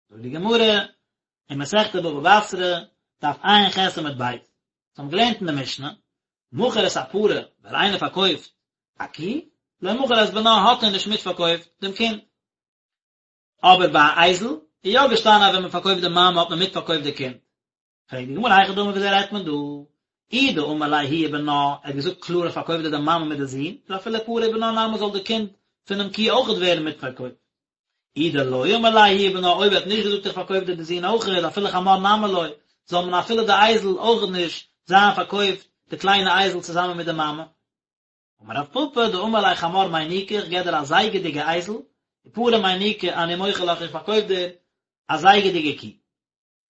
זאגט די גמרא אין מסכת בבא בתרא, דף ע"ח עמוד ב', אונז האבן געלערנט אין די משנה, מכר את הפרה, ווען איינער פארקויפט א קי, לא מכר את בנה האט ער נישט מיטפארקויפט דעם קינד. אבער ביי א אייזל איז יא געשטאנען אז ווען מען פארקויפט די מאמע האט מען מיטפארקויפט די קינד. פרעגט די גמרא היכי דמי וויאזוי רעדט מען דא? אי דאמר ליה היא ובנה, ער האט געזאגט קלאר איך פארקויף דיר די מאמע מיט די זון, איז אפילו פרה ובנה נמי זאל די קינד פונעם קי אויכעט ווערן מיטפארקויפט. אי דלא אמר ליה היא ובנה, אויב ער האט נישט געזאגט איך פארקויף דיר די זון אויכעט, אפילו חמור נמי לא, זאל מען אפילו די אייזל אויכעט נישט זיין פארקויפט די קליינע אייזל צוזאמען מיט די מאמע. אמר רב פפא דאמר ליה חמור מיניקה איך געב דיר א זייגעדיגע אייזל, ופרה מיניקה אני מוכר לך איך פארקויף דיר א זייגעדיגע קי.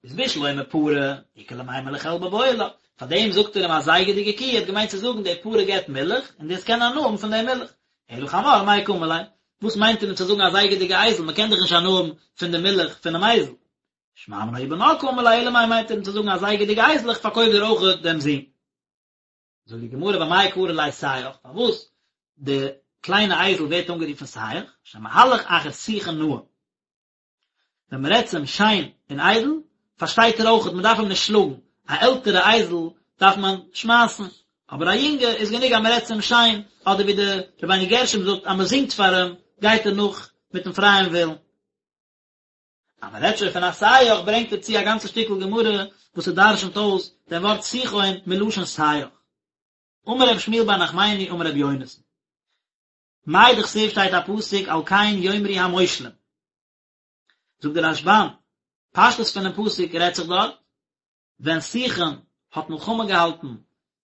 איז בשלמא פרה, איכא למימר לחלבה בעי לה, פאר דעם זאגט ער אים א זייגעדיגע קי, ער האט געמיינט צו זאגן די פרה געבט מילך, און דו וועסט קענען הנאה האבן פון די מילך. אלא חמור מאי קאמר ליה, וואס מיינט ער אים צו זאגן א זייגעדיגע אייזל, מען קען דאך נישט הנאה האבן פון די מילך פונעם אייזל. שמע מינה היא ובנה קאמר ליה, אלא מאי מיינט ער אים צו זאגן א זייגעדיגע אייזל איך פארקויף דיר אויך דעם זון. זאגט די גמרא ואמאי קרי ליה סייח, פארוואס די קליינע אייזל ווערט אנגערופן סייח, שמהלך אחר שיחה נאה, ווען מען רעדט צו אים שיין און איידל, פארשטייט ער אויכעט, מען דארף אים נישט שלאגן, א עלטערע אייזל דארף מען שמייסן, אבער א יונגע איז גענוג אז מען רעדט צו אים שיין, אדער ווי די רבינו גרשום זאגט אז מען זינגט פאר אים, גייט ער נאך מיטן פרייען ווילן. אז מען רעדט שוין פון א סייח ברענגט ער צו א גאנצע שטיקל גמרא וואס ער דרשנ'ט אויס דעם ווארט סיחון מלשון סייח. אמר רב שמואל בר נחמני אמר רבי יונתן. מאי דכתיב שטייט א פסוק על כן יאמרו המושלים. זאגט דער רשב"ם, פשטות פונעם פסוק רעדט זיך דארט ווען סיחון האט מלחמה געהאלטן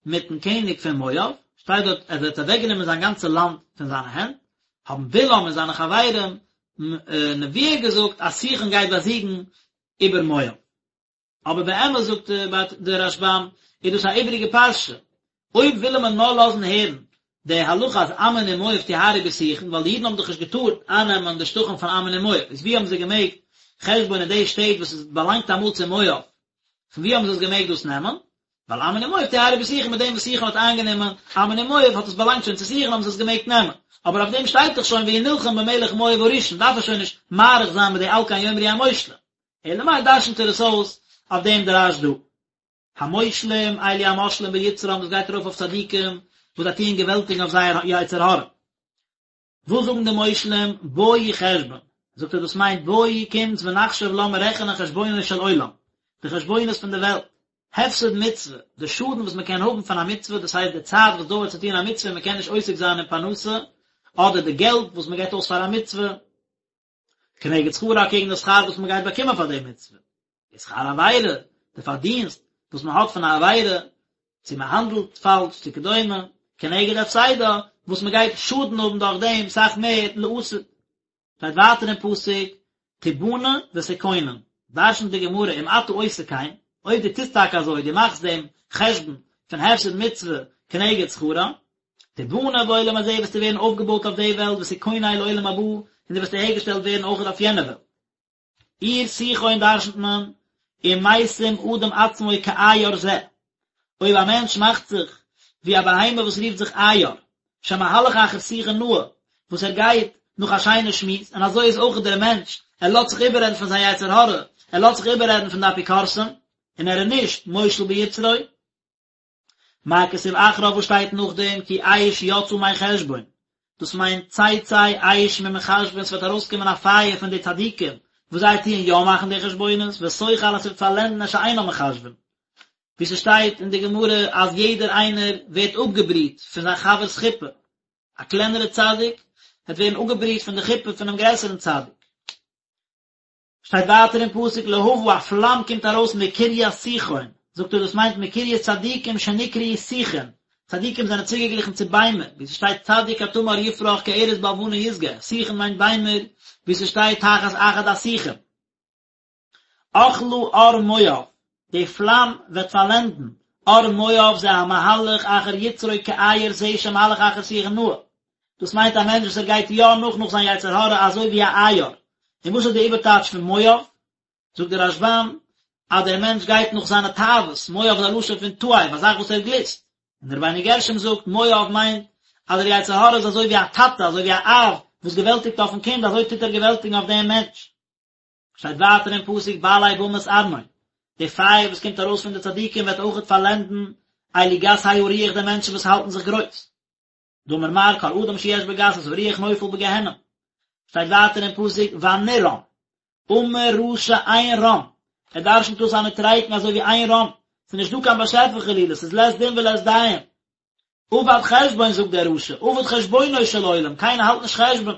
מיטן קעניג פון מואב, שטייט דארט אז ער האט אוועקגענומען זיין גאנצע לאנד פון זיינע הענט, האבן בלעם און זיינע חברים נבואה געזאגט אז סיחון גייט באזיגן איבער מואב. אבער באמת זאגט דער רשב"ם איז דאס א איבעריגע פרשה, אויב וויל מען נאר לאזן הערן די הלכה אז עמון און מואב טהרו בסיחון, ווייל די אידן האבן דאך נישט געטארט אייננעמען די שטחים פון עמון און מואב, איז ווי האבן זיי געמעגט חשבון און די שטעט וואס עס באלאנגט אמאל צו מואב, פון ווי האבן זיי עס געמעגט דאס נעמען? ווייל עמון און מואב טהרו בסיחון מיט דעם וואס סיחון האט איינגענומען עמון און מואב האט עס באלאנגט שוין צו סיחון האבן זיי עס געמעגט נעמען. אבער אויף דעם שטייט דאך שוין והוא נלחם במלך מואב הראשון, דארף ער שוין נישט מאריך זיין מיט די על כן יאמרו המושלים. אלא מאי דרשנ'ט ער עס אויס אויף דעם דרש דא. המושלים, אלו המושלים ביצרם, דאס גייט ארויף אויף צדיקים וואס זיי טוען געוועלטיגן אויף זייער יצר הרע. וואס זאגן די מושלים, בואו חשבון, זאגט ער דאס מיינט בואו קומטס ונחשב לאמיר רעכענען חשבונו של עולם, די חשבונות פון די וועלט, הפסד מצוה, די שאדן וואס מען קען האבן פון א מצוה, דאס הייסט די צייט וואס דויערט צו טון א מצוה און מען קען נישט עוסק זיין אין פרנסה, אדער די געלט וואס מען געבט אויס פאר א מצוה, כנגד שכרה אקעגן די שכר וואס מען גייט באקומען פאר די מצוה, ושכר עבירה, די פארדינסט וואס מען האט פון א עבירה, צו מען האנדלט פאלש צו כדומה, כנגד הפסדה, וואס מען גייט שאדן האבן דורך דעם סאך מער לעתיד. שטייט ווייטער אין פסוק, תבנה ותכונן, דרשנ'ט די גמרא אם אתה עושה כן, אויב דו טוסט טאקע אזוי, דו מאכסט דעם חשבון פון הפסד מצוה כנגד שכרה, תבנה בעולם הזה וועסטו ווערן אויפגעבויט אויף די וועלט ותכונן לעולם הבא, און דו וועסט אהערגעשטעלט ווערן אויך אויף יענע וועלט. עיר סיחון דרשנ'ט מען, אם משים אדם עצמו כעיר זה, אויב א מענטש מאכט זיך ווי א בהמה וואס רופט זיך עיר, שמהלך אחר שיחה נאה, וואס ער גייט נאך א שיינע שמועס, און אזוי איז אויך דער מענטש, ער לאזט זיך איבעררעדן פון זיין יצר הרע, ער לאזט זיך איבעררעדן פון די אפיקורסים, און ער איז נישט מושל ביצרו. מה כתיב אחריו וואס שטייט נאכדעם כי אש יצאה מחשבון, דאס מיינט תצא אש ממחשבין ס'וועט ארויסקומען א פייער פון די צדיקים וואס זיי טוען יא מאכן די חשבונות ותאכל און ס'וועט פארלענדן את שאינם מחשבין, ווי ס'שטייט אין די גמרא אז יעדער איינער ווערט אפגעבריט פון זיין חבר'ס חופה, א קלענערע צדיק וועט ווערן אפגעבריט פון די חופה פונעם גרעסערן צדיק. שטייט ווייטער אין פסוק להבה א פלאם קומט ארויס מקרית סיחון, זאגט ער דאס מיינט מקרית צדיקים שנקראו שיחין, צדיקים זענען צוגעגליכן צו ביימער, ווי ס'שטייט צדיק כתמר יפרח כארז בלבנון ישגה, שיחין מיינט ביימער, ווי ס'שטייט תחת אחד השיחים. אכלה ער מואב, די פלאם וועט פארלענדן, ער מואב זה המהלך אחר יצרו כעיר זה שמהלך אחר שיחה נאה, דאס מיינט א מענטש וואס ער גייט יא נאך נאך זיין יצר הרע אזוי ווי א עיר. און וואס איז די איבערטייטש פון מואב? זאגט דער רשב"ם אז דער מענטש גייט נאך זיינע תאוות, מואב איז א לשון פון תאב, א זאך וואס ער גליסט. און דער רבינו גרשום זאגט, מואב מיינט אז דער יצר הרע איז אזוי ווי א טאטע, אזוי ווי א אב וואס געוועלטיגט אויפן קינד, אזוי טוט ער געוועלטיגן אויף דעם מענטש. שטייט ווייטער אין פסוק בעלי במת ארנון, די פייער וואס קומט ארויס פון די צדיקים וועט אויכעט פארלענדן אלו גסי הרוח די מענטשן וואס האלטן זיך גרויס. דאמר מר כל אדם שיש בו גסות הרוח נופל בגיהנום. שטייט ווייטער אין פסוק ונרם, אמר רשע אין רם, ער דרשנ'ט דאס א נוטריקון אזוי ווי אין רם, ס'איז נישט דא קיין באשעפער חלילה, ס'איז לית דין ולית דיין. אבד חשבון זאגט דער רשע, אבד חשבונו של עולם, קיינער האלט נישט חשבון.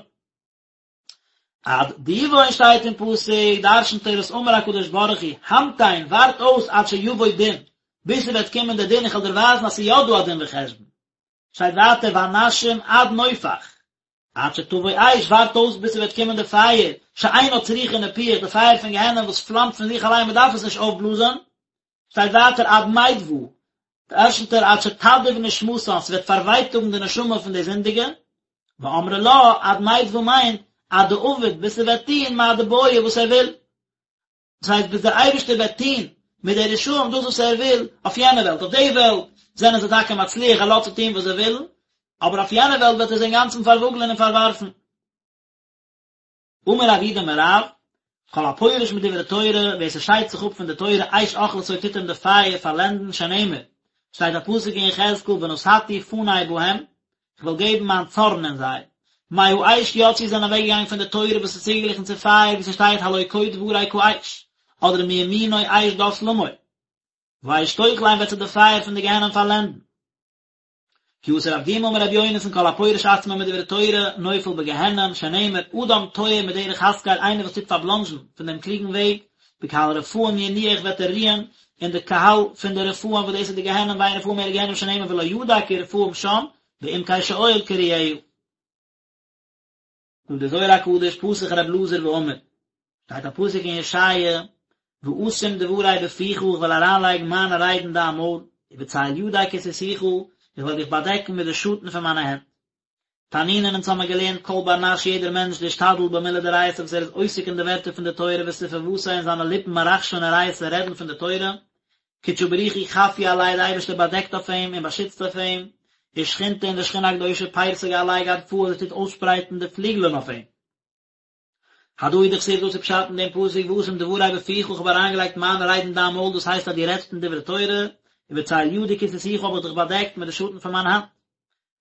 עד דיבון שטייט אין פסוק, דרשנ'ט ער עס אמר הקדוש ברוך הוא, המתן, ווארט אויס עד שיבוא דין, ביז ס'וועט קומען דער דין, איך וועל דיר ווייזן אז ס'איז יא דא א דין וחשבון. שטייט ווייטער ונשים עד נופח, עד שתבוא אש, ווארט אויס ביז ס'וועט קומען די פייער, שאינה צריכה ניפוח, די פייער פון גיהנום וואס פלאמט פון זיך אליין, מ'דארף עס נישט אויפבלאזען, שטייט ווייטער עד מידבא, דרשנ'ט ער עד שתדאיב נשמתן, ס'וועט פארווייטאגן די נשמה פון די זינדיגע, ואמרי לה, עד מידבא מיינט, עד דעביד, ביז ס'וועט טוהן מה דבעי וואס ער וויל. דאס הייסט ביז דער אייבערשטער וועט טוהן מיט די רשעים דאס וואס ער וויל אויף יענע וועלט, אויף די וועלט זענען זיי טאקע מצליח ער לאזט זיי טוהן וואס זיי ווילן, אבער אויף יענע וועלט וועט ער זיי אינגאנצן פארוואגלען און פארווארפן. אמר רב יהודה אמר רב, כל הפורש מדברי תורה, ווער ס'שיידט זיך אפ פון די תורה, אש אוכלתו טוט אים די פייער פארלענדן, שנאמר, שטייט א פסוק אין יחזקאל ונתתי פני בהם, כ'וועל געבן מיין צארן אין זיי. מהאש יצאו זענען אוועקגעגאנגען פון די תורה וואס איז צוגעגליכן צו פייער ווי ס'שטייט הלא כה דברי כאש, אדער מימינו אש דת למו. והאש תאכלם וועט זיי די פייער פון די גיהנום פארלענדן. כי אתא רב דימי אמר רבי יונתן כל הפורש עצמו מדברי תורה נופל בגיהנום שנאמר אדם תועה מדרך השכל איינער וואס טוט פארבלאנדזשן פון דעם קלוגן וועג בקהל רפאים ינוח וועט ער רוען אין די קהל פון די רפאים וואס דאס איז די גיהנום ואין רפאים אלא גיהנום שנאמר ולא ידע כי רפאים שם בעמקי שאול קרואיה. זאגט דער זוהר הקדוש פתח ר' אלעזר ואמר, שטייט א פסוק אין ישעיה, ואשים דברי בפיך איך וועל אריינלייגן מיינע רייד אין דיין מויל, ובצל ידי כסיתיך, איך וועל דיך באדעקן מיט די שאטן פון מיינע הענט. תנינן אונז האמיר געלערנט כל בר נש יעדער מענטש דאשתדל במילי דאורייתא וואס ער איז עוסק אין די ווערטער פון די תורה וספוותיה און זיינע ליפן מרחשין אורייתא רעדן פון די תורה, קודשא בריך הוא חפי עליה די אייבערשטער באדעקט אויף אים און באשיצט אויף אים, ושכינתא און די שכינה הקדושה פרסא עליה גדפהא זי טוט אויסשפרייטן די פליגלען אויף אים. הדא הוא דכתיב דאס איז פשט אין דעם פסוק ואשים דברי בפיך איך האב אריינגעלייגט מיינע רייד אין דיין מויל דאס הייסט אז דו רעדסט אין דברי תורה, ובצל ידי כסיתיך האב איך דיך באדעקט מיט די שאטן פון מיין האנט.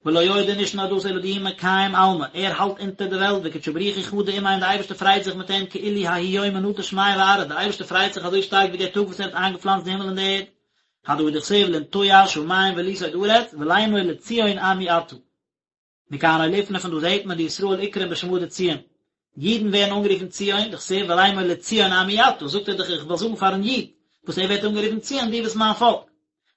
ולא עוד און נישט נאר דאס אלא דהוא מקיים עלמא, ער האלט אונטער די וועלט וקודשא בריך הוא חדי עמיה און די אייבערשטער פרייט זיך מיט אים כאילו ההוא יומא נטע שמיא וארעא, די אייבערשטער פרייט זיך אזוי שטארק ווי דער טאג וואס ער האט איינגעפלאנצט די הימל און די ערד, הדא הוא דכתיב לנטוע שמים וליסוד ארץ ולאמר לציון עמי אתה. מכאן אוליפנא פון דא זעהט מען דישראל אקרון בשמא דציון, אידן ווערן אנגערופן ציון, דכתיב ולאמר לציון עמי אתה, זאגט ער דאך איך וועל זאגן פארן איד, וואס ער ווערט אנגערופן ציון דו ביסט מיין פאלק.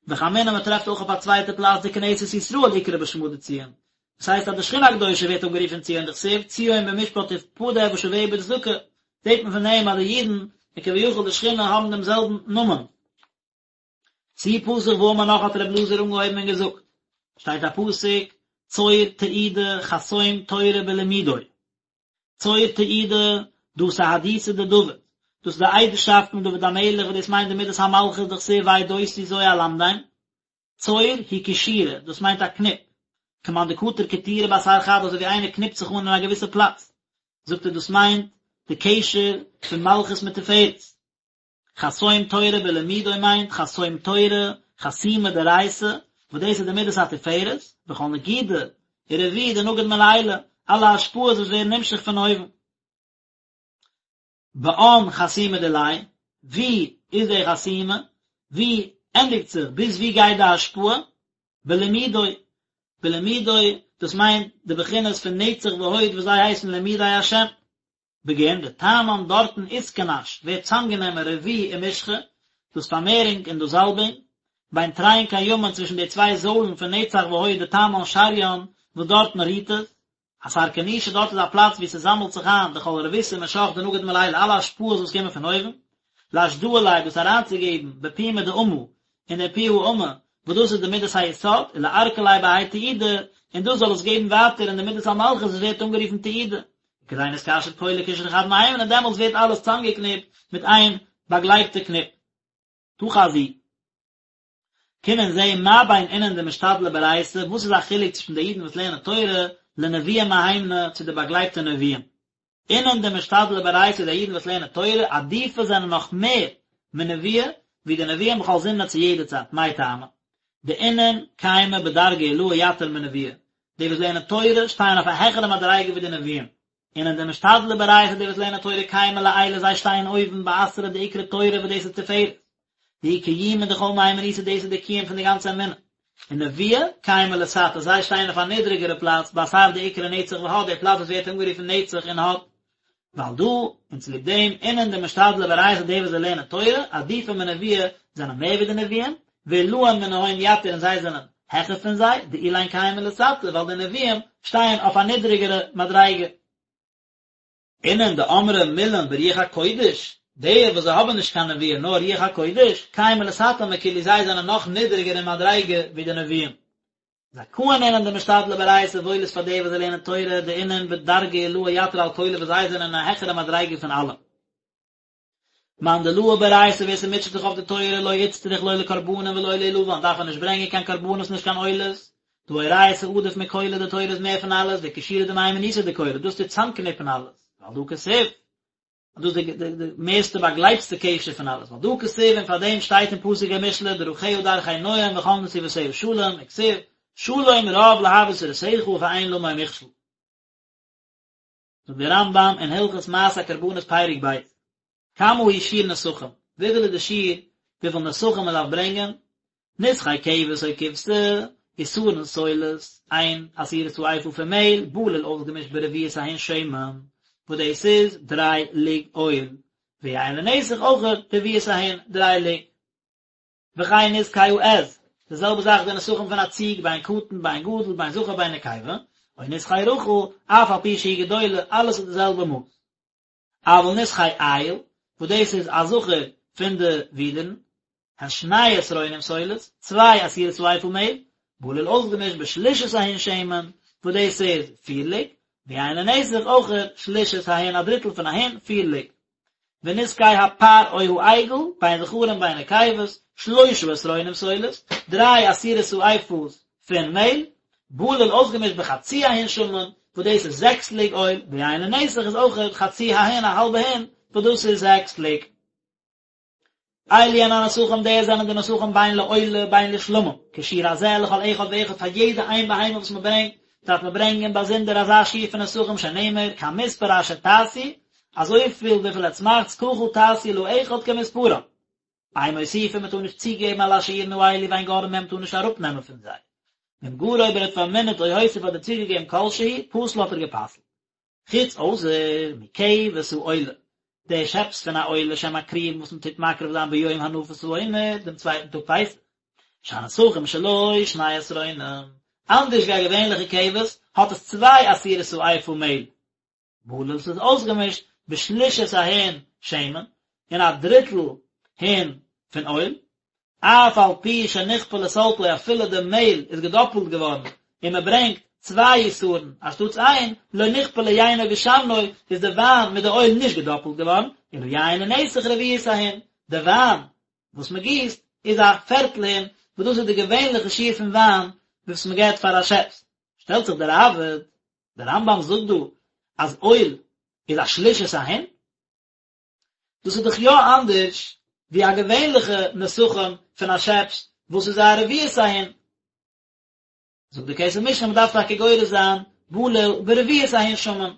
וחמינא מען טרעפט אויך אויף א צווייטע פלאץ דכנסת ישראל אקרי בשמא דציון, דאס הייסט אז די שכינה הקדושה ווערט אנגערופן ציון דכתיב ציון במשפט תפדה ושביה בצדקה, זעהט מען פון דעם אז די אידן און כביכול די שכינה האבן דעם זעלבן נאמען. צו פתח ואמר נאך האט ר' אלעזר אנגעהויבן און געזאגט, שטייט א פסוק, צור תעודה חתום תורה בלמודו, צור תעודה, דא סהדותא דדוד, דאס איז די עדות'שאפט פון דוד המלך וואס דאס מיינט די מידת המלכות דכתיב ועדותי זו אלמדם, צור הוא קשירה, דאס מיינט א קניפ, כמאן דקטיר קטירא באתר חד אזוי ווי איינער קניפט זיך אן אין א געוויסע פלאץ, זאגט ער דאס מיינט די קשר פון מלכות מיט תפארת. חתום תורה בלמודו מיינט חתום תורה, חתימה דאורייתא, וואס דאס איז די מידת התפארת, וכל נגידא ורבו דנגיד מלעילא, אלע השפעות וואס ווערן נמשך פון אויבן. באין חתימה דיליה, ווי איז די חתימה? ווי ענדיגט זיך? ביז ווי גייט די השפעה? בלמודו, בלמודו, דאס מיינט די בחינות פון נצח והוד וואס זיי הייסן למודי השם. בגין דתמן דארטן אתכנש ווערט צאמגענומען רבו ומשחא, דאס פארמערונג און דאס זאלבונג, בין תרין קיימין צווישן די צוויי זוילן פון נצח והוד דתמן שריין וואס דארטן רוהט עס, אתר כנישא דארט איז א פלאץ וואו ס'זאמלט זיך איין דכל רבותא ומשח דנגיד מלעילא אלע השפעות וואס קומען פון אויבן, לאשדאה ליה דאס אריינצוגעבן בפומא דאמא אין דער פי האמה וואס דאס איז די מידת היסוד, ולארקא ליה בהאי תעודה, און דאס זאל עס געבן ווייטער אין די מידת המלכות וואס ווערט אנגערופן תעודה, כדין אתקשר כולא קשרא חד מהימנא און דעמאלטס ווערט אלעס צאמגעקניפט מיט איין באגלייבטע קניפ. תא חזי. קום און זע מה בין אינון דמשתדלי באורייתא, וואס איז א חילוק צווישן די אידן וואס לערנען תורה, לנביאי מהימנא, צו די באגלייבטע נביאים. אינון דמשתדלי באורייתא די אידן וואס לערנען תורה, עדיפי זענען נאך מער מנביאי, ווי די נביאים בכל זמנא צו יעדע צייט, מאי טעמא? דאינון קיימי בדרגא עילאה יתיר מנביאי, די וואס לערנען תורה שטייען אויף א העכערע מדריגה ווי די נביאים. אינון דמשתדלי באורייתא די וואס לערנען תורה קיימי לעילא זיי שטייען אויבן באתרא דאקרי תורה וואס דאס איז תפארת. דהיא קיומא דכל מהימנותא דאס איז די קיום פון די גאנצע אמונה. און נביאי קיימי לתתא זיי שטייען אויף א נידריגערע פלאץ באתר דאקרי נצח והוד די פלאץ וואס ווערט אנגערופן נצח און הוד. ועל דא, און צוליב דעם, אינון דמשתדלי באורייתא די וואס זיי לערנען תורה, עדיפי מנביאי, זענען מער ווי די נביאים, ועילאין מנהון יתיר און זיי זענען העכער פון זיי, דאילין קיימי לתתא, ווייל די נביאים שטייען אויף א נידריגערע מדריגה. אינון דאמרי מילין ברוח הקודש, די וואס זיי האבן נישט קיין נבואה נאר רוח הקודש, קיימי לתתא מכולהו זיי זענען נאך נידריגער אין מדריגה ווי די נביאים. זכאין אינון דמשתדלי באורייתא וואויל איז פאר די וואס זיי לערנען תורה דאינון בדרגא עילאה יתיר על כולא וואס זיי זענען אין א העכערע מדריגה פון אלע. מאן דלעי באורייתא ווער ס'מוטשעט זיך אויף די תורה לא אצטריך לא לקרבנין ולא לאילבן דארף ער נישט ברענגען קיין קרבנות נישט קיין עולות, דהא אורייתא עדיף מכולא די תורה איז מער פון אלעס וקשירא דמהימנותא דכולא דאס טוט צאמקניפן אלעס, ועל דא כתיב. דאס איז די די מערסטע באגלייבטסטע קשר פון אלעס, ועל דא כתיב און פאר דעם שטייט אין פסוק אין משלי דרכיה דרכי נועם וכל נתיבותיה שלום, וכתיב שלום רב לאוהבי תורתך ואין למו מכשול. זאגט דער רמב"ם אין הלכות מעשה הקרבנות פרק ב', כמה הוא שיעור נסכים, וויפיל איז די שיעור וויפיל נסכים מען דארף ברענגען, נסכי כבש או כבשה, עשרון סולת, איין עשירית האיפה פון מעהל, בלול אויסגעמישט ברביעית ההין שמן, וואס דאס איז דריי לוג אויל, ויין לנסך אויך רביעית ההין, דריי לוג. וכן נסכי העז, די זעלבע זאך די נסכים פון א ציג, בין קטן בין גדול, בין זכר בין נקבה, או נסכי רחל, אף על פי שהיא גדולה, אלעס איז די זעלבע מאס. אבל נסכי איל, וואס דאס איז א זכר פון די ווידערן, הן שני עשרונים סולת, צוויי עשירית האיפה מעל, בלול אויסגעמישט בשלישית ההין שמן, וואס דאס איז פיר לוג, ויין לנסך אויך שלישית ההין א דריטל פון א הין, פיר לוג. ונסכי הפר או העגל, בין זכרים בין נקבות, שלושה עשרונים סולת, דריי עשירית האיפות פון מעל, בלול אויסגעמישט בחצי ההין שמן, וואס דאס איז זעקס לוג אויל, ויין לנסך איז אויכעט חצי ההין א האלבע הין, וואס דאס איז זעקס לוג. אלו הן הנסכים די זענען די נסכים בין לעולה בין לשלמים, כשיעור הזה לכל אחד ואחד פאר יעדע איין בהמה וואס מען ברענגט, דארף מען ברענגען באזונדער אזא שיעור פון נסכים שנאמר כמספר אשר תעשו, אזויפיל וויפיל עטס מאכטס ככה תעשו לאחד כמספרם. אין מוסיפין מען טאר נישט צוגעבן על השיעורין האלו ואין גורעין מהם מען טאר נישט אראפנעמען פון זיי. ואם גרע אויב ער האט פארמינערט או הוסיף אדער צוגעגעבן כל שהוא, פסל האט ער גע'פסל'ט. חוץ אויסער מכבש העולה, די שעפס פון א עולה שמקריבין וואס מען טוט מקריב זיין ביום הנפת העומר, דעם צווייטן טאג פסח, שהנסכים שלו שני עשרונים, אנדערש ווי א געווענליכע כבש האט עס צוויי עשירית האיפה מעהל, בלול ס'איז אויסגעמישט בשלישית ההין שמן, אין א דריטל הין פון אויל, אף על פי שנכפלה סלתו אפילו די מעהל איז געדאפלט געווארן און מען ברענגט צוויי עשרון אנשטאטס איין, לא נכפלה יינו ושמנו איז די וויין מיט די אויל נישט געדאפלט געווארן, אלא יין לנסך רביעית ההין, די וויין וואס מען גיסט איז א פערטל הין, וואס דאס איז די געווענליכע שיעור פון וויין וואס מען געבט פאר א שעפס. שטעלט זיך דער ראב"ד, דער רמב"ם זאגט דא אז אויל איז א שלישית ההין, דאס איז דאך יא אנדערש ווי א געווענליכע נסכים פון א שעפס וואס איז א רביעית ההין. זאגט די כסף משנה מ'דארף טאקע גורס זיין בלול ברביעית ההין שמן.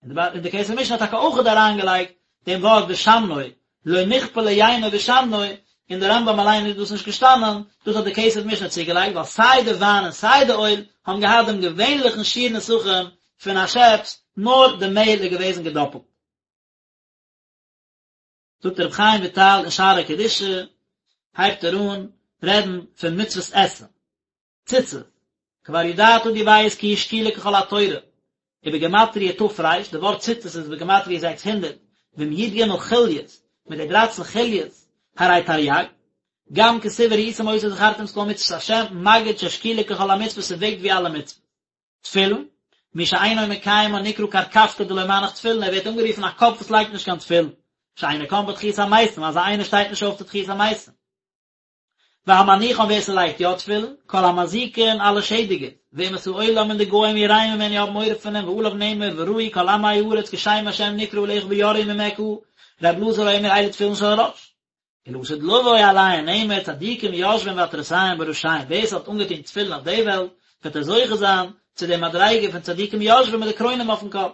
און די כסף משנה האט טאקע אויכעט אריינגעלייגט דעם ווארט ושמנו, לא נכפלה יינו ושמנו, אין די רמב"ם אליין איז דאס נישט געשטאנען, דאס האט די כסף משנה צוגעלייגט ווייל סיי די וויין און סיי די אויל האבן געהאט דעם געווענליכן שיעור נסכים פון א שעפס, נאר די מעהל איז געוועזן געדאפלט. זאגט רבי חיים וויטאל אין שערי קדושה, הייבט ער אן רעדן פון מצוות עשה, ציצית, כבר ידעת דו ווייסט כי היא שקולה ככל התורה, ובגימטריא ת"ר, די ווארט ציצית איז בגימטריא 600, ועם י"ג חוליות, מיט די דרייצן חוליות, הרי תרי"ג, גם כתיב וראיתם אותו וזכרתם את כל מצוות השם, מגיד ששקולה ככל המצוות ס'וועגט ווי אלע מצוות. תפילין, מי שאינו מקיימן נקרא קרקפתא דלא מנח תפילין, ער ווערט אנגערופן א קאפ וואס לייגט נישט קיין תפילין, שאינו קם בתחיית המתים, אזא איינער שטייט נישט אויף צו תחיית המתים. והמניחן ווער ס'לייגט יא תפילין, כל המזיקין אלע שעדיגער, ואומות העולם און די גוים יראים ממנו האבן מורא פון אים ועליו נאמר וראו כל עמי הארץ כי שם השם נקרא עליך ויראו ממך, ר' אלעזר אומר אלו תפילין של ראש. ולעתיד לבוא עליהן נאמר צדיקים יושבים ועטרותיהם בראשיהם ווער ס'האט אנגעטון תפילין אויף די וועלט וועט ער זוכה זיין צו די מדריגה פון צדיקים יושבים מיט די קרוינען אויפן קאפ.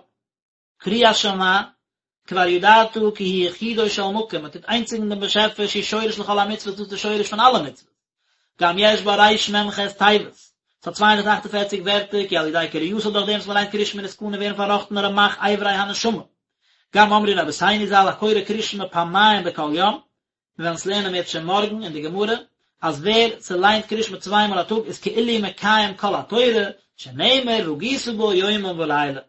קריאת שמע, כבר ידעת כי היא יחודו של מקום, מען טוט איינציגן דעם באשעפער שהיא שורש לכל המצוות דאס איז די שורש פון אלע מצוות. גם יש בה רמ"ח תיבות, ס'האט 248 ווערטער כי על ידי קריאתה דורך דעם וואס מען ליינט קריאת שמע נתקנין ווערן פארראכטן רמ"ח אברי הנשמה. גם אמרו רבותינו ז"ל הקורא קריאת שמע פעמיים בכל יום, מיר וועלן עס לערנען אם ירצה השם מארגן אין די גמרא, אז ווער ס'ליינט קריאת שמע צוויי מאל א טאג איז כאילו מקיים כל התורה, שנאמר והגית בו יומם ולילה.